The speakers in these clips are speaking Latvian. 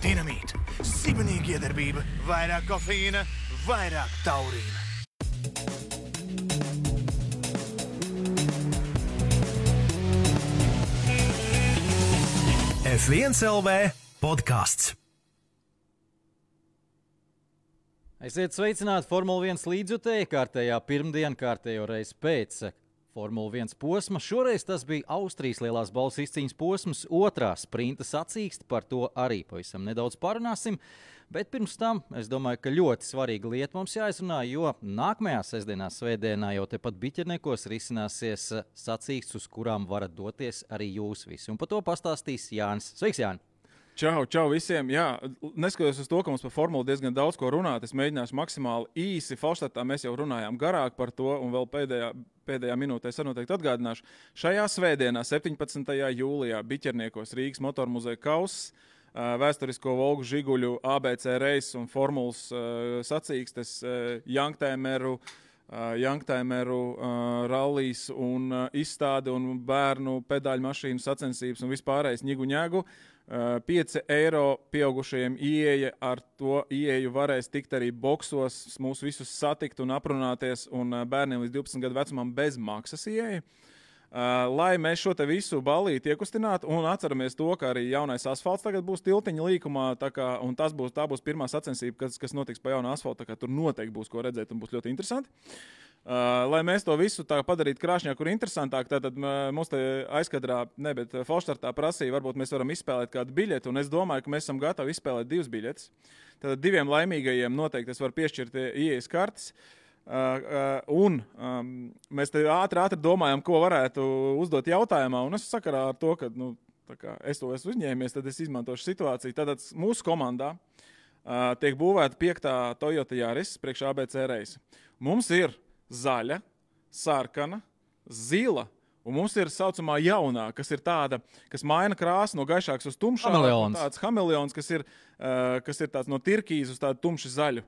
Dinamīta, sibenīga iedarbība, vairāk kofeīna, vairāk taurīna. F1 LV podcasts. Esiet sveicināti Formula 1 līdzjutēji kārtējā pirmdiena, kārtējo reizi pēc Formula 1 posma. Šoreiz tas bija Austrijas lielās balvas izcīņas posms, otrā sprinta sacīkste, par to arī pavisam nedaudz parunāsim. Bet pirms tam es domāju, ka ļoti svarīga lieta mums jāizrunā, jo nākamajā sestdienā, svētdienā jau tepat Biķerniekos risināsies sacīkstes, uz kurām varat doties arī jūs visi. Un par to pastāstīs Jānis. Sveiks, Jāni! Čau visiem! Jā, neskatoties uz to, ka mums par formulu diezgan daudz ko runāt, es mēģināšu maksimāli īsi. Falštatā mēs jau runājām garāk par to, un vēl pēdējā minūtē es noteikti atgādināšu. Šajā svētdienā, 17. jūlijā, Biķerniekos Rīgas motormuzeja kauss, vēsturisko Volgu Žiguļu ABC reisu un formulas sacīkstes, Youngtimeru rallijas un izstāde un bērnu pedāļu mašīnu sacensības un vispārējais ņigu-ņēgu. 5 eiro pieaugušajiem ieeja, ar to ieeju varēs tikt arī boksos, mūs visus satikt un aprunāties, un bērniem līdz 12 gadu vecumam bez maksas ieeja. Lai mēs šo te visu ballīti iekustinātu un atceramies to, ka arī jaunais asfalts tagad būs tiltiņa līkumā, un tā būs pirmā sacensība, kas notiks pa jaunu asfaltu, tā kā tur noteikti būs ko redzēt un būs ļoti interesanti. Lai mēs to visu tā padarītu krāšņāk un interesantāk, tad mums te aizkadrā, bet Falštartā prasīja, varbūt mēs varam izspēlēt kādu biļeti, un es domāju, ka mēs esam gatavi izspēlēt 2 biļetes. Tad 2 laimīgajiem noteikti es varu piešķirt ieejas kartes, un mēs te ātri domājam, ko varētu uzdot jautājumā, un es sakarā ar to, ka es to esmu uzņēmies, tad es izmantošu situāciju. Tātad mūsu komandā tiek būvēta 5. Toyota Yaris priekš ABC reisa. Mums ir zaļa, sarkana, zila, un mums ir saucamā jaunā, kas ir tāda, kas maina krāsu no gaišāks uz tumšāku. Tāds hameleons, kas ir tāds no tirkīza uz tādu tumši zaļu.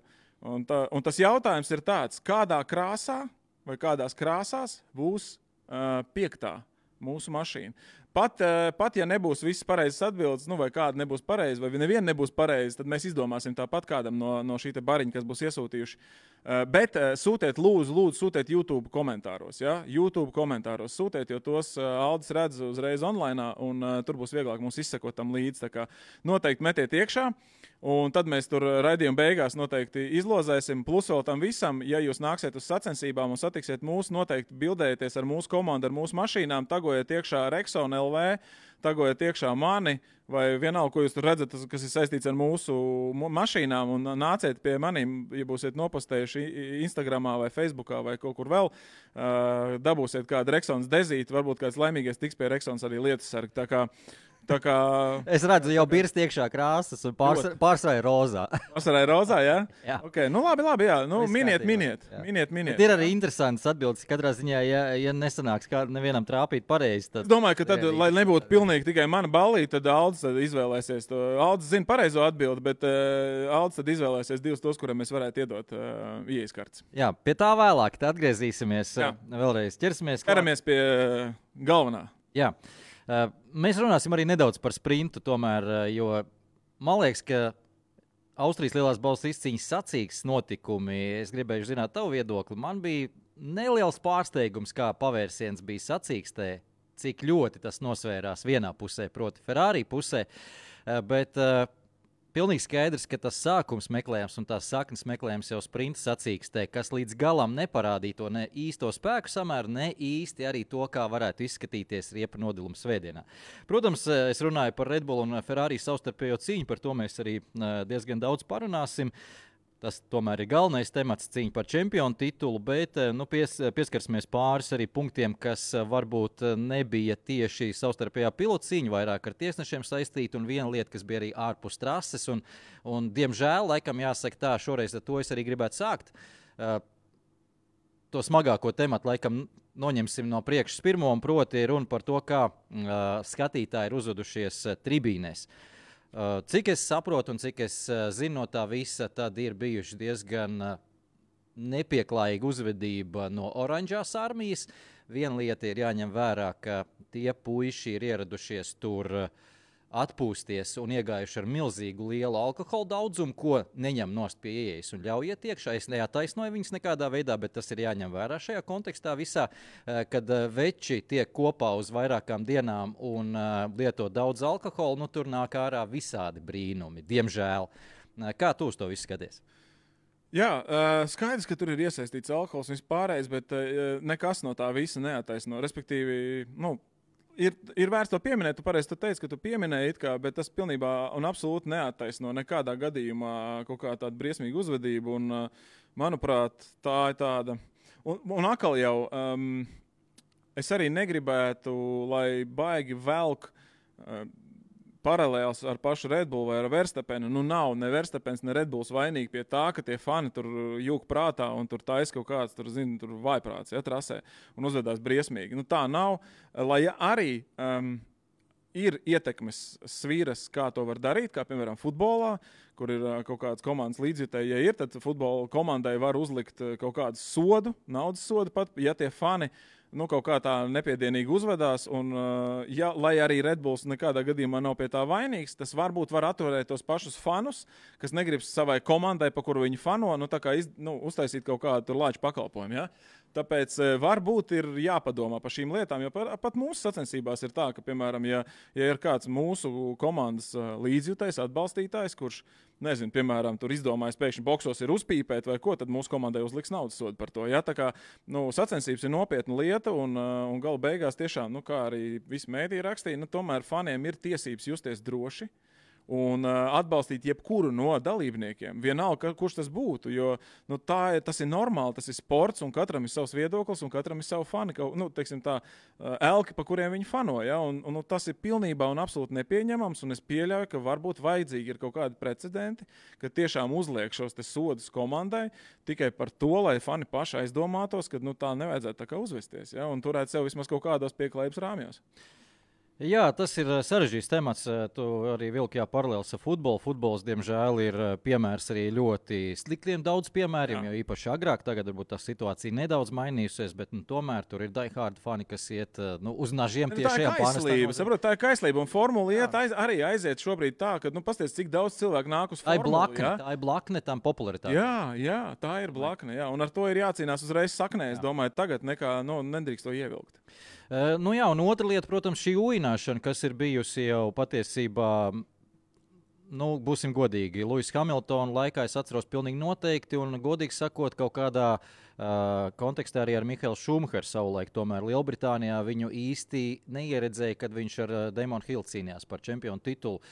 Un tas jautājums ir tāds, kādā krāsā vai kādās krāsās būs 5. mūsu mašīna. Pat ja nebūs viss pareizes atbildes, vai kāda nebūs pareiza, vai neviena nebūs pareiza, tad mēs izdomāsim tāpat kādam no šī te bariņa, kas būs iesūtījuši. Bet sūtiet, lūdzu, sūtiet YouTube komentāros. Ja? YouTube komentāros sūtiet, jo tos Aldis redz uzreiz online, un tur būs vieglāk mums izsekot tam līdzi. Tā kā noteikti metiet iekšā, un tad mēs tur raidījuma beigās noteikti izlozēsim. Plus vēl tam visam, ja jūs nāksiet uz sacensībām un satiksiet mūs, noteikti bildējieties ar mūsu komandu, ar mūsu mašīnām, tagojiet iekšā Rexon LV, tagojiet iekšā mani, vai vienalga, ko jūs tur redzat, kas ir saistīts ar mūsu mašīnām, un nāciet pie maniem, ja būsiet nopostējuši Instagramā vai Facebookā vai kaut kur vēl, dabūsiet kādu Rexons dezīti, varbūt kāds laimīgais tiks pie Rexons arī lietas sargi. Tā kā... Es redzu, jau birst iekšā krāsas un pārsvarā rozā. Pārsvarā rozā, jā? Jā. Okay. Labi, jā. Miniet. Bet ir arī interesants atbildes. Katrā ziņā, ja nesanāks kā nevienam trāpīt pareizi, tad... Es domāju, ka tad, lai nebūtu pilnīgi tikai mana ballīte, tad Aldis tad izvēlēsies to. Aldis zina pareizo atbildi, bet Aldis tad izvēlēsies 2 tos, kuriem mēs varētu iedot ieejas kartes. Jā, pie tā vēlāk. Tad atgriezīsimies. Vēlreiz ķeramies pie galvenā. Jā. Mēs runāsim arī nedaudz par sprintu, tomēr, jo man liekas, ka Austrijas lielās balvas izcīņas sacīkstes notikumi, es gribēju zināt tavu viedokli, man bija neliels pārsteigums, kā pavērsiens bija sacīkstē, cik ļoti tas nosvērās vienā pusē, proti Ferrari pusē, bet pilnīgi skaidrs, ka tas sākums meklējams un tās saknes meklējams jau sprinta sacīkstē, kas līdz galam neparādīja to ne īsto spēku samēru, ne īsti arī to, kā varētu izskatīties riepa nodiluma svētdienā. Protams, es runāju par Red Bull un Ferrari savstarpējo cīņu, par to mēs arī diezgan daudz parunāsim. Tas tomēr ir galvenais temats, cīņa par čempionu titulu, bet pieskarsimies pāris arī punktiem, kas varbūt nebija tieši savstarpējā pilotu cīņa, vairāk ar tiesnešiem saistīta, un viena lieta, kas bija arī ārpus trases. Un diemžēl, laikam jāsaka tā, šoreiz ar to es arī gribētu sākt. To smagāko tematu laikam noņemsim no priekšas pirmo, un proti runa par to, kā skatītāji ir uzvedušies tribīnēs. Cik es saprotu un cik es zinu no tā visa, tad ir bijuši diezgan nepieklājīga uzvedība no oranžās armijas. Viena lieta ir jāņem vērā, ka tie puiši ir ieradušies tur atpūsties un iegājuši ar milzīgu lielu alkohola daudzumu, ko neņem nost pie ieejas un ļauj iet iekšā. Es neataisnoju viņus nekādā veidā, bet tas ir jāņem vērā šajā kontekstā visā, kad veči tiek kopā uz vairākām dienām un lieto daudz alkohola, tur nāk ārā visādi brīnumi, diemžēl. Kā tu uz to visu skaties? Jā, skaidrs, ka tur ir iesaistīts alkohols un vispārējais, bet nekas no tā visa neataisno. Respektīvi, ir vērts to pieminēt, tu pareizi teici, ka tu pieminēji it kā, bet tas pilnībā un absolūti neattaisno nekādā gadījumā kaut kā tādu briesmīgu uzvedību, un manuprāt, tā ir tāda. Un atkal jau, es arī negribētu, lai baigi velk paralēls ar pašu Red Bull vai ar Verstapenu. Nav ne Verstapens, ne Red Bulls vainīgi pie tā, ka tie fani tur jūk prātā un tur taisa kaut kāds, tur vaiprāts, trasē un uzvedās briesmīgi. Tā nav, lai arī ir ietekmes svīras, kā to var darīt, kā piemēram futbolā, kur ir kaut kādas komandas līdzjutēji, ja ir, tad futbola komandai var uzlikt kaut kādu sodu, naudas sodu pat, ja tie fani kaut kā tā nepiedienīgi uzvedās, un lai arī Red Bulls nekādā gadījumā nav pie tā vainīgs, tas varbūt var atturēt tos pašus fanus, kas negrib savai komandai, pa kuru viņi fano, tā kā uztaisīt kaut kādu tur lāču pakalpojumu, ja? Tāpēc varbūt ir jāpadomā par šīm lietām, jo pat mūsu sacensībās ir tā, ka, piemēram, ja ir kāds mūsu komandas līdzjutējs, atbalstītājs, kurš, nezinu, piemēram, tur izdomājis pēkšņi boksos ir uzpīpēt vai ko, tad mūsu komandai uzliks naudas sodu par to. Ja? Tā kā sacensības ir nopietna lieta un gala beigās tiešām, kā arī visi mēdī rakstīja, tomēr faniem ir tiesības justies droši un atbalstīt jebkuru no dalībniekiem. Vienalga, kurš tas būtu, jo tas ir normāli, tas ir sports, un katram ir savs viedoklis, un katram ir savu fani, teiksim tā, elki, pa kuriem viņi fano, ja? Un tas ir pilnībā un absolūti nepieņemams, un es pieļauju, ka varbūt vajadzīgi ir kaut kādi precedenti, ka tiešām uzliek šos te sodus komandai tikai par to, lai fani paši aizdomātos, ka tā nevajadzētu tā kā uzvesties, ja? Un turēt sev vismaz kaut kādos pieklājības rāmjos. Jā, tas ir sarežģīts temats. Tu arī vilki paralēlis ar futbolu. Futbols, diemžēl, ir piemērs arī ļoti sliktiem daudz piemēriem, jo īpaši agrāk, tagad varbūt tā situācija nedaudz mainījusies, bet tomēr tur ir die-hard fani, kas iet uz nažiem tiešajā pārnestā. Tā ir kaislība, un formula arī aiziet šobrīd tā, ka, pasties, cik daudz cilvēku nāk uz formulu. Tā ir blakne tam popularitātei. Jā, tā ir blakne, jā, un ar to ir jācīnās uzreiz saknē, es domāju, tagad nekā, nedrīkst to ievilkt. Un otra lieta, protams, šī ujināšana, kas ir bijusi jau patiesībā, būsim godīgi, Lewis Hamiltona laikā es atceros pilnīgi noteikti, un godīgi sakot, kaut kādā kontekstā arī ar Mihaelu Šumacheru savulaik, tomēr Lielbritānijā viņu īsti neieredzēja, kad viņš ar Damonu Hillu cīnījās par čempionu titulu.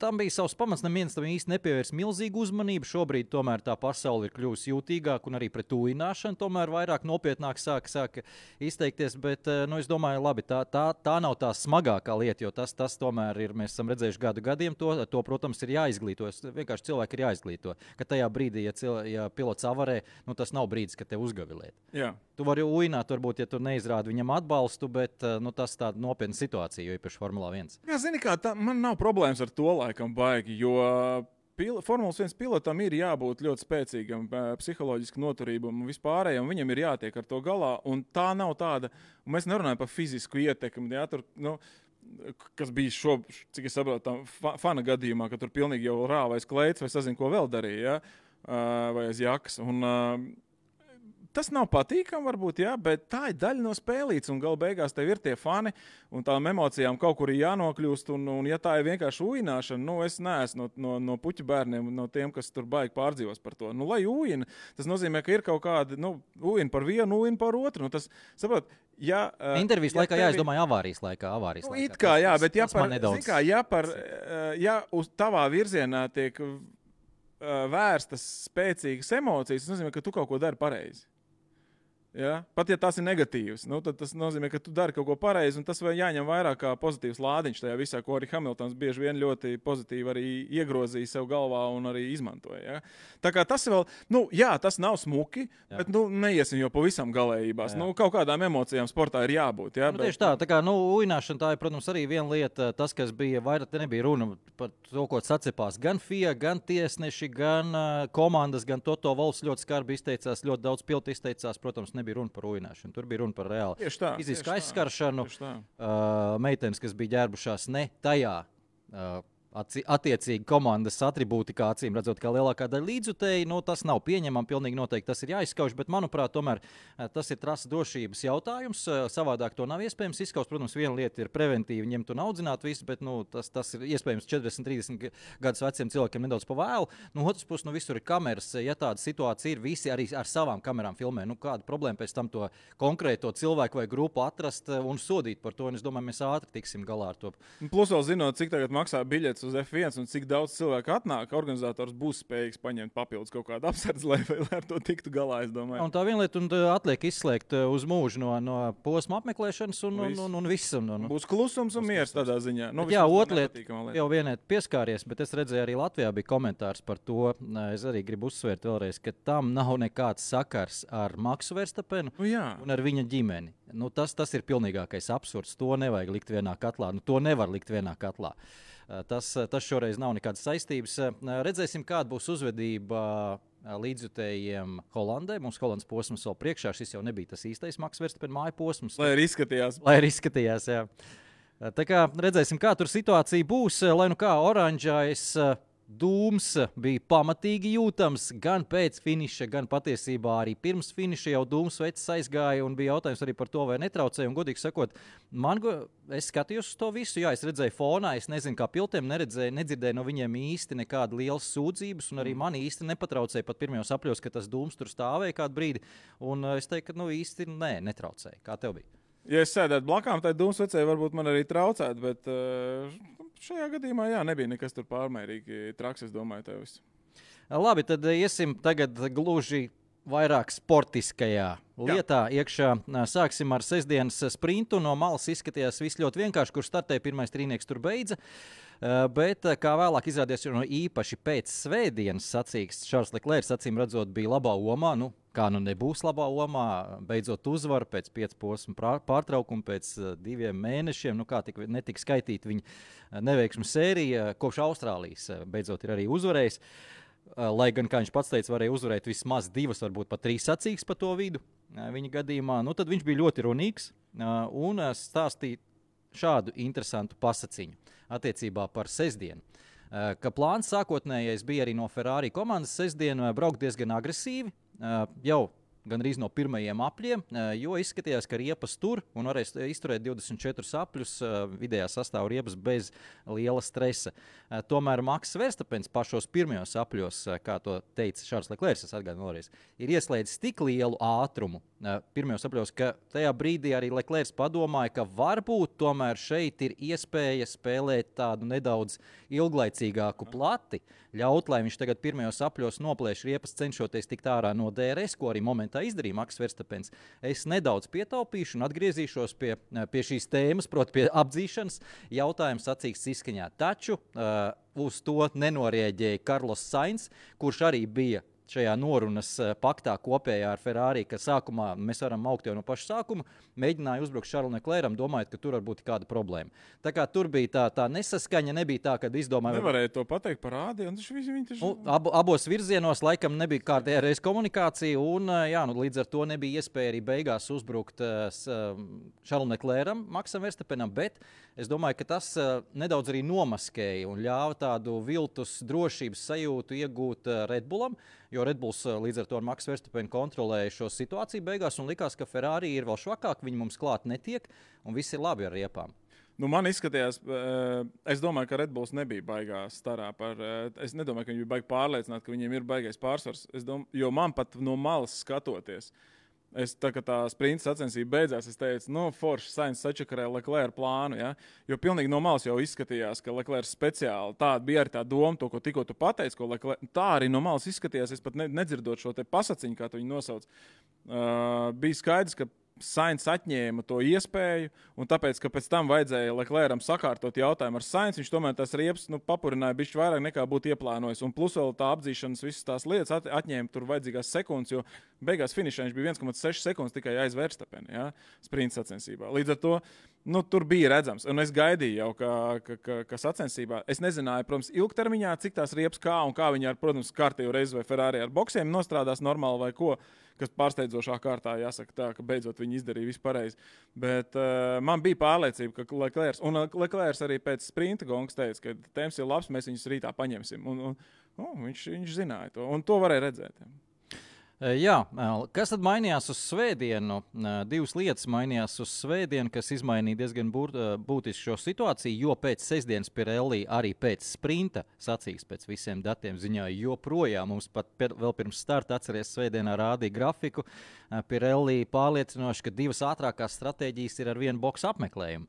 Tam bija savs pamats, neviens tam īsti nepievērs milzīgu uzmanību. Šobrīd tomēr tā pasaule ir kļuvusi jūtīgāka un arī pret ujināšanu tomēr vairāk nopietnāk sāka izteikties, bet es domāju, labi, tā nav tā smagākā lieta, jo tas tomēr ir, mēs esam redzējuši gadu gadiem, to protams, ir jāizglīto. Vienkārši cilvēki ir jāizglīto, ka tajā brīdī, ja pilots avarē, tas nav brīdis, ka te uzgavilēt. Jā. Tu vari uināt, varbūt, ja tu neizrādi viņam atbalstu, bet tas tāda nopietna situācija, jo īpaši Formulā 1. Jā, zini kā, man nav problēmas ar to laikam baigi, jo Formulas 1 pilotam ir jābūt ļoti spēcīgam, psiholoģiski noturībam un vispārējam, viņam ir jātiek ar to galā, un tā nav tāda, un mēs nerunājam par fizisku ietekmi, jā, tur, kas bija cik es saprotu, fana gadījumā, ka tur pilnīgi jau rāvais kleids vai sazin, ko vēl darīja, ja? Vai aiz jakas, un tas nav patīkami, varbūt, jā, bet tā ir daļa no spēlītes, un gala beigās tev ir tie fani, un tām emocijām kaut kur ir jānokļūst, un ja tā ir vienkārši ujināšana, es neesmu no puķu bērniem, no tiem, kas tur baigi pārdzīvos par to. Lai ujina, tas nozīmē, ka ir kaut kādi, ujina par vienu, ujina par otru. Tas, saprot, intervijas laikā, jā, es domāju, avārijas laikā. It kā, jā, bet ja uz tavā virzienā tiek vērstas spēcīgas emocijas, tas nozīmē, ka tu kaut ko dari pareizi. Ja? Pat ja tas ir negatīvs, tad tas nozīmē, ka tu dari kaut ko pareizi, un tas vai jāņem vairāk kā pozitīvs lādiņš tajā visā, ko arī Hamiltons bieži vien ļoti pozitīvi arī iegrozīja sev galvā un arī izmantoja. Ja? Tā kā tas vēl, tas nav smuki, bet neiesim jau pavisam galējībās. Kaut kādām emocijām sportā ir jābūt. Ja? Tieši tā kā uināšana tā ir, protams, arī viena lieta, tas, kas bija vairāk, te nebija runa par to, ko sacepās gan FIA, gan tiesneši, gan komandas, gan Toto Wolffs ļoti skarbi izteicās, ļoti daudz pilti izteicās, protams, nebija runa par uināšanu. Tur bija runa par reāli fizisku aizskaršanu. Meitenes, kas bija ģērbušās ne tajā attiecīgi komandas atribūtikā, acīm redzot, kā lielākā daļa līdzjutēji, tas nav pieņemami, pilnīgi noteikti tas ir jāizskauž, bet, manuprāt, tomēr tas ir trases drošības jautājums. Savādāk to nav iespējams izskaust. Protams, viena lieta ir preventīvi ņemt un audzināt visu, bet tas ir iespējams 40, 30 gadus veciem cilvēkiem nedaudz pa vēlu. Otrs puses, visur ir kameras. Ja tāda situācija ir, visi arī ar savām kamerām filmē. Kāda problēma pēc tam to konkrēto cilvēku vai grupu atrast un sodīt par to? Un es domāju, mēs ātri tiksim galā ar to. Plus vēl zinot, cik tagad maksā biļetes uz F1 un cik daudz cilvēku atnāk, organizators būs spējīgs paņemt papildus kaut kādu apsardzi, lai ar to tiktu galā, es domāju. Un tā viena lieta, un atliek izslēgt uz mūžu no posma apmeklēšanas un viss. Būs klusums un miers tādā ziņā. Jā, otra lieta, jau vienai pieskāries, bet es redzēju, arī Latvijā bija komentārs par to. Es arī gribu uzsvērt vēlreiz, ka tam nav nekāds sakars ar Maksu Verstapenu un ar viņa ģimeni. Tas ir pilnīgākais absurds. To nevajag likt vienā katlā. To nevar likt vienā katlā. Tas šoreiz nav nekādas saistības. Redzēsim, kāda būs uzvedība līdzjutējiem Holandē. Mums Holandas posms vēl priekšā. Šis jau nebija tas īstais Maks Verstapen māju posms. Lai arī izskatījās. Jā. Tā kā redzēsim, kā tur situācija būs. Lai kā oranžais dūms bija pamatīgi jūtams gan pēc finiša, gan patiesībā arī pirms finiša jau dūms vecs aizgāja un bija jautājums arī par to, vai netraucēja. Un, godīgi sakot, es skatījos uz to visu, es redzēju fonā, es nezinu, kā piltiem nedzirdēju no viņiem īsti nekāda lielas sūdzības, un arī mani īsti nepatraucēja pat pirmajos apļos, ka tas dūms tur stāvēja kādu brīdi. Un es teiktu, ka īsti netraucēja. Kā tev bija? Ja es sēdētu blakām, tad dūmsvecēji varbūt man arī traucētu, bet šajā gadījumā nebija nekas tur pārmērīgi traks, es domāju, tev viss. Labi, tad iesim tagad gluži vairāk sportiskajā lietā iekšā. Sāksim ar sestdienas sprintu. No malas izskatījās viss ļoti vienkārši, kurš startēja pirmais trīnieks tur beidza. Bet, kā vēlāk izrādījās, īpaši pēc svētdienas sacīksts Charles Leclerc, acīm redzot, bija labā omā. Kā nebūs labā omā, beidzot uzvaru pēc 5 posmu pārtraukuma, pēc 2 mēnešiem. Kā netika skaitīta viņa neveiksmu sērija, kopš Austrālijas beidzot ir arī uzvarējis. Lai gan, kā viņš pats teica, varēja uzvarēt vismaz 2, varbūt pat 3 sacīkstes pa to vidu viņa gadījumā. Tad viņš bija ļoti runīgs un stāstīja šādu interesantu pasaciņu attiecībā par sestdienu. Ka plāns sākotnējais bija arī no Ferrari komandas sestdienu braukt diezgan agresīvi, jau gandrīz no pirmajiem apļiem, jo izskatījās, ka riepas tur un varēs izturēt 24 apļus vidējā sastāvu riepas bez liela stresa. Tomēr Maks Verstapens pašos pirmajos apļos, kā to teica Charles Leclerc, es atgādinu vēlreiz, ir ieslēdzis tik lielu ātrumu pirmajos apļos, ka tajā brīdī arī Leclerc padomāja, ka varbūt tomēr šeit ir iespēja spēlēt tādu nedaudz ilglaicīgāku plati, ļaut, lai viņš tagad pirmajos apļos noplēš riepas, cenšoties tikt ārā no DRS, ko arī momentā izdarīja Maks Verstapens. Es nedaudz pietaupīšu un atgriezīšos pie šīs tēmas, proti pie apdzīšanas jautājums sacīksts izskaņā. Taču uz to nenorēģēja Carlos Sainz, kurš arī bija šajā norunas paktā kopējā ar Ferrari, ka sākumā mēs varam augt jau no paša sākuma, mēģināja uzbrukt Charlesu Leclercam, domājot, ka tur var būt kāda problēma. Tā kā tur bija tā nesaskaņa, nebija tā, kad izdomāja... Nevarēja to pateikt par ādi, un abos virzienos laikam nebija kārtējā reiz komunikācija, un līdz ar to nebija iespēja arī beigās uzbrukt Charlesu Leclercam, Maksam Verstapenam, bet es domāju, ka tas nedaudz arī nomaskēja un ļāva tādu viltus drošības sajūtu iegūt Red Bullam, jo Red Bulls līdz ar to ar Maksu Verstapenu kontrolēja šo situāciju beigās un likās, ka Ferrari ir vēl švakāk, viņi mums klāt netiek un viss ir labi ar riepām. Man izskatījās, es domāju, ka Red Bulls nebija baigā starā es nedomāju, ka viņi bija baigi pārliecināti, ka viņiem ir baigais pārsvars, jo man pat no malas skatoties, Kad tā sprinta sacensība beidzās, es teicu, forši Sainz sačakarēja Leclerc plānu, ja? Jo pilnīgi no malas jau izskatījās, ka Leclerc speciāli tāda bija arī tā doma, to, ko tikko tu pateici, ko Leclerc, tā arī no malas izskatījās, es pat nedzirdot šo te pasaciņu, kā tu viņu nosauc. Bija skaidrs, ka Sainz atņēma to iespēju, un tāpēc, ka pēc tam vajadzēja Leclercam sakārtot jautājumu ar Sainz, viņš tomēr tās riepas papurināja bišķi vairāk nekā būtu ieplānojis. Un plus vēl tā apdzīšanas visas tās lietas atņēma tur vajadzīgās sekundes, jo beigās finišā viņš bija 1,6 sekundes tikai aiz Verstappena, ja, sprinta sacensībā. Līdz ar to tur bija redzams, un es gaidīju jau, ka sacensībā, es nezināju, protams, ilgtermiņā, cik tās riepas kā un kā viņi ar, protams, kārtējo reizi vai Ferrari ar boksiem nostrādās normāli vai ko, kas pārsteidzošā kārtā jāsaka tā, ka beidzot viņi izdarīja visu pareizi. Bet man bija pārliecība, ka Leclerc arī pēc sprinta gongas teica, ka temps ir labs, mēs viņus rītā paņemsim. Viņš zināja to, un to varēja redzēt. Jā, kas tad mainījās uz svētdienu? Divas lietas mainījās uz svētdienu, kas izmainīja diezgan būtiski šo situāciju, jo pēc sestdienas Pirelli arī pēc sprinta sacīks pēc visiem datiem ziņoja, joprojām mums pat vēl pirms starta atceries svētdienā rādīja grafiku. Pirelli pārliecinoši, ka divas ātrākās stratēģijas ir ar vienu boksu apmeklējumu.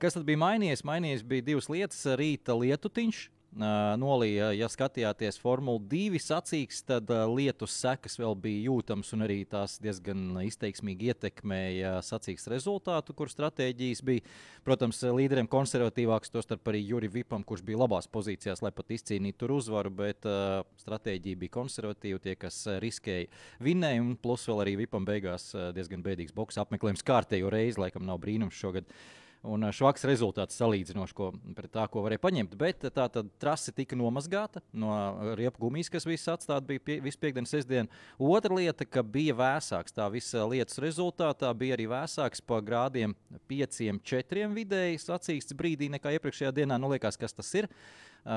Kas tad bija mainījies? Mainījies bija divas lietas, rīta lietutiņš. Nolīja, ja skatījāties Formula 2 sacīks, tad lietus sekas vēl bija jūtams un arī tās diezgan izteiksmīgi ietekmēja sacīks rezultātu, kur stratēģijas bija. Protams, līderiem konservatīvāks, tostarp arī Juri Vipam, kurš bija labās pozīcijās, lai pat izcīnītu tur uzvaru, bet stratēģija bija konservatīva, tie, kas riskēja vinnēja, un plus vēl arī Vipam beigās diezgan bēdīgs boksa apmeklējums kārtējo reizi, laikam nav brīnums šogad. Un švaks rezultāts salīdzinoši pret tā, ko varēja paņemt. Bet tā tad trase tika nomazgāta no riepu gumijas, kas viss atstāta bija visu piekdienu, sestdienu. Otra lieta, ka bija vēsāks. Tā visa lietas rezultātā bija arī vēsāks pa grādiem 5-4 vidēji sacīksts brīdī nekā iepriekšējā dienā. Liekas, kas tas ir.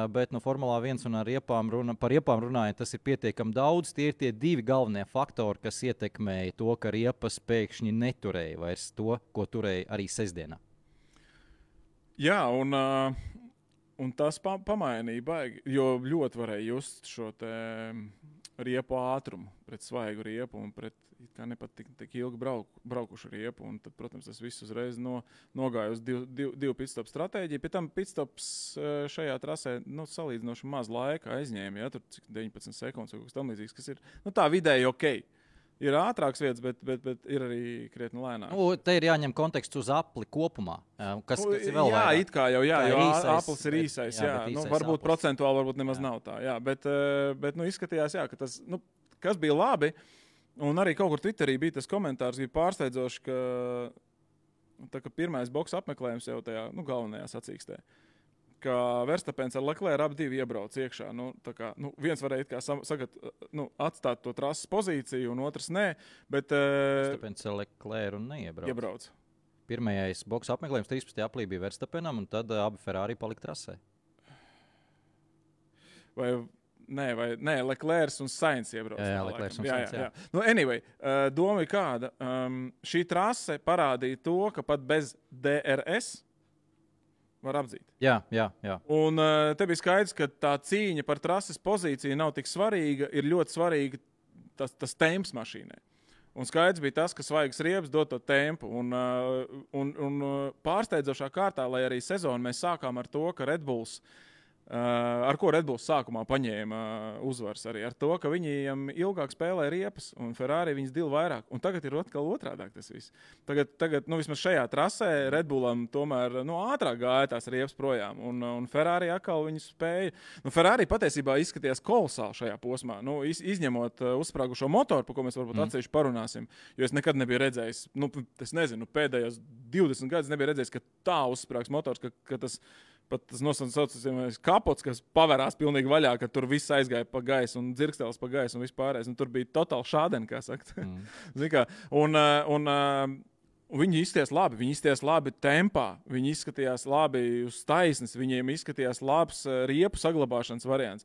Bet no Formulā 1 un par riepām runājot, tas ir pietiekami daudz. Tie ir tie divi galvenie faktori, kas ietekmēja to, ka riepas pēkšņi neturēja vairs to, ko turēja arī sestdienā. Jā, un tas pamainīja baigi, jo ļoti varēja just šo te riepu ātrumu pret svaigu riepu un pret kā nepat tik ilgi braukušu riepu. Un tad, protams, tas viss uzreiz nogāja uz divu pitstop stratēģiju. Pie tam pitstops šajā trasē salīdzinoši maz laika aizņēma, ja, tur 19 sekundes vai kaut kas tam līdzīgs, kas ir tā vidēji okei. Ir ātrāks vietas, bet ir arī krietni lēnāk. Te ir jāņem konteksts uz apli kopumā. Kas ir vēl vairāk? Jā, it kā jau, jo aplis ir īsais. Jā, varbūt aplis. Procentuāli varbūt nemaz nav tā. Jā, bet izskatījās, jā, ka tas, kas bija labi, un arī kaut kur Twitterī bija tas komentārs, bija pārsteidzoši, ka pirmais boksa apmeklējums jau tajā galvenajā sacīkstē. Ka Verstappens ar Leclerc abi divi iebrauc iekšā. Viens varēja atstāt to trases pozīciju, un otrs nē. Bet Verstappens ar Leclerc un neiebrauc. Pirmais boksa apmeklējums 13. aprīlī bija Verstappenam, un tad abi Ferrari palika trasē. Nē, Leclerc un Sainz iebrauc. Jā, Leclerc un Sainz, jā. Anyway, doma ir kāda. Šī trase parādīja to, ka pat bez DRS var apdzīt. Jā. Un te bija skaidrs, ka tā cīņa par trases pozīciju nav tik svarīga, ir ļoti svarīga tas temps mašīnai. Un skaidrs bija tas, ka svaigas riepas dod to tempu. Un pārsteidzošā kārtā, lai arī sezonu mēs sākām ar to, ka Red Bulls, ar ko Red Bulls sākumā paņēma uzvaras arī ar to, ka viņiem ilgāk spēlē riepas un Ferrari viņas dil vairāk. Un tagad ir atkal otrādāk tas viss. Tagad vismaz šajā trasē Red Bullam tomēr ātrāk gāja tās riepas projām. Un Ferrari atkal viņu spēja. Ferrari patiesībā izskatījās kolosāli šajā posmā. Izņemot uzsprāgušo motoru, par ko mēs varbūt atsevišķi parunāsim, jo es nekad nebiju redzējis, es nezinu, pēdējos 20 gadus nebiju redzējis, ka tā uzsprāgs motors, ka tas pat tas nosaucamais kapots, kas pavērās pilnīgi vaļā, ka tur viss aizgāja pa gaisu un dzirkstelis pa gaisu un vispārējais. Un tur bija totāli šādien, kā sakt. Un viņi izskatījās labi tempā, viņi izskatījās labi uz taisnes, viņiem izskatījās labs riepu saglabāšanas variants.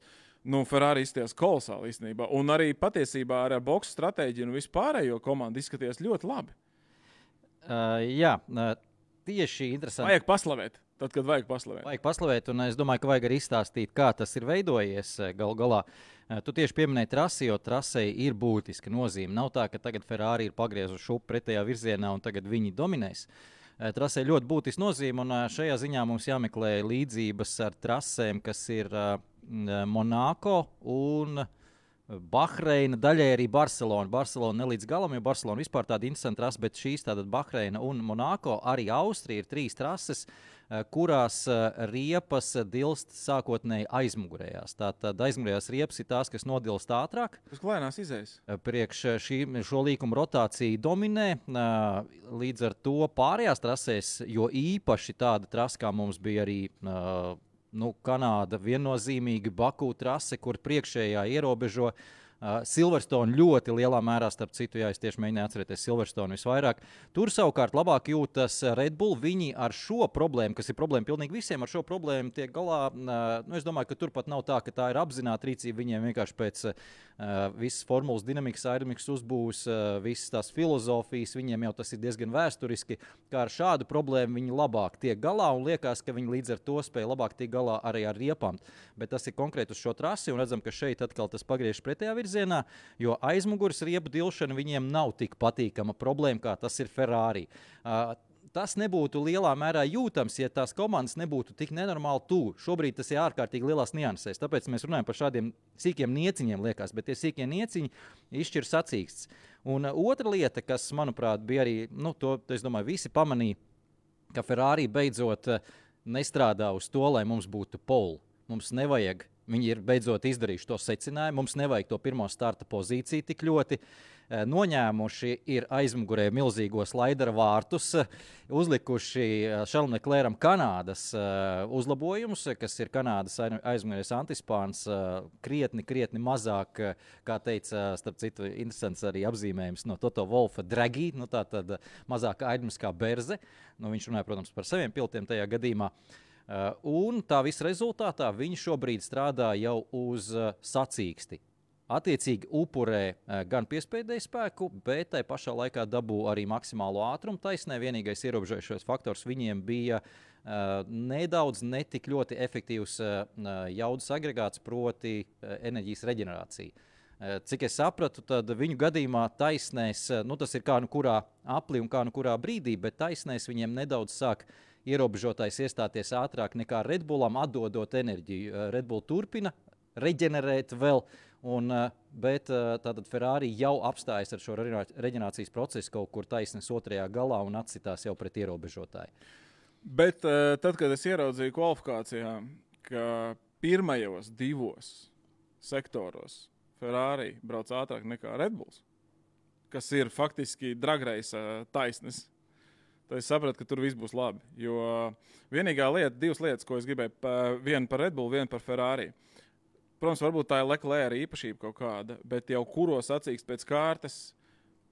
Ferrari izskatījās kolosāli īstenībā. Un arī patiesībā ar boksu stratēģiju un vispārējo komandu izskatījās ļoti labi. Tieši interesanti. Vajag paslavēt. Tad, kad vajag paslavēt. Vajag paslavēt, un es domāju, ka vajag arī izstāstīt, kā tas ir veidojies galu galā. Tu tieši pieminēji trasi, jo trasei ir būtiska nozīme. Nav tā, ka tagad Ferrari ir pagriezuši šupu pretējā virzienā un tagad viņi dominēs. Trasei ļoti būtiska nozīme, un šajā ziņā mums jāmeklē līdzības ar trasēm, kas ir Monako un Bahreina, daļai arī Barcelona. Barcelona ne līdz galam, jo Barcelona vispār tāda interesanta trasa, bet šīs tātad Bahreina un Monako, arī Austrija ir 3 trases, kurās riepas dilst sākotnēji aizmugurējās. Tātad aizmugurējās riepas ir tās, kas nodilst ātrāk. Tas klēnās izējas. Priekš šo līkumu rotāciju dominē. Līdz ar to pārējās trasēs, jo īpaši tāda trasa, kā mums bija arī Kanāda, viennozīmīgi Baku trase, kur priekšējā ierobežo Silverstone ļoti lielā mērā, starp citu, es tieši mēģināju atcerēties Silverstone visvairāk. Tur savukārt labāk jūtas Red Bull. Viņi ar šo problēmu, kas ir problēma pilnīgi visiem, ar šo problēmu tiek galā. Es domāju, ka tur pat nav tā, ka tā ir apzināta rīcība. Viņiem vienkārši pēc visas formulas dinamikas, aerodinamikas uzbūves, visas tās filozofijas, viņiem jau tas ir diezgan vēsturiski, kā ar šādu problēmu viņi labāk tiek galā un liekas, ka viņi līdz ar to spēja labāk tiek galā arī ar riepām. Bet tas ir konkrēti uz šo trasi un redzam, ka šeit atkal tas pagriež pretējā virzienā, jo aizmugures riepu dilšana viņiem nav tik patīkama problēma, kā tas ir Ferrari. Tas nebūtu lielā mērā jūtams, ja tās komandas nebūtu tik nenormāli tuvu. Šobrīd tas ir ārkārtīgi lielās niansēs, tāpēc mēs runājam par šādiem sīkiem nieciņiem, liekas, bet tie sīkie nieciņi izšķir sacīksts. Un otra lieta, kas, manuprāt, bija arī, to, es domāju, visi pamanīja, ka Ferrari beidzot nestrādā uz to, lai mums būtu pole. Mums nevajag, viņi ir beidzot izdarījuši to secinājumu, mums nevajag to pirmo starta pozīciju tik ļoti. Noņēmuši ir aizmugurē milzīgo slaidera vārtus, uzlikuši Charlesu Leclercam Kanādas uzlabojumus, kas ir Kanādas aizmugurēs antispāns, krietni mazāk, kā teica, starp citu, interesants arī apzīmējums no Toto Wolfa Draghi, tātad mazāk aerodinamiskā berze. Viņš runāja, protams, par saviem pilotiem tajā gadījumā. Un tā visa rezultātā viņi šobrīd strādā jau uz sacīksti. Attiecīgi upurē gan piespēdēju spēku, bet tai pašā laikā dabū arī maksimālo ātrumu taisnē. Vienīgais ierobežojošais faktors viņiem bija nedaudz netik ļoti efektīvs jaudas agregāts, proti enerģijas reģenerācija. Cik es sapratu, tad viņu gadījumā taisnēs, tas ir kā kurā aplī un kā kurā brīdī, bet taisnēs viņiem nedaudz sāk ierobežotais iestāties ātrāk nekā Red Bullam, atdodot enerģiju. Red Bull turpina reģenerēt vēl, bet tātad Ferrari jau apstājas ar šo reģenerācijas procesu kaut kur taisnes otrajā galā un atsitās jau pret ierobežotāju. Bet tad, kad es ieraudzīju kvalifikācijā, ka pirmajos 2 sektoros Ferrari brauc ātrāk nekā Red Bulls, kas ir faktiski dragreisa taisnes, tad es sapratu, ka tur viss būs labi. Jo vienīgā lieta, 2 lietas, ko es gribēju, viena par Red Bull, viena par Ferrari. Protams, varbūt tā ir Leclerc īpašība kaut kāda, bet jau kuro sacīkst pēc kārtas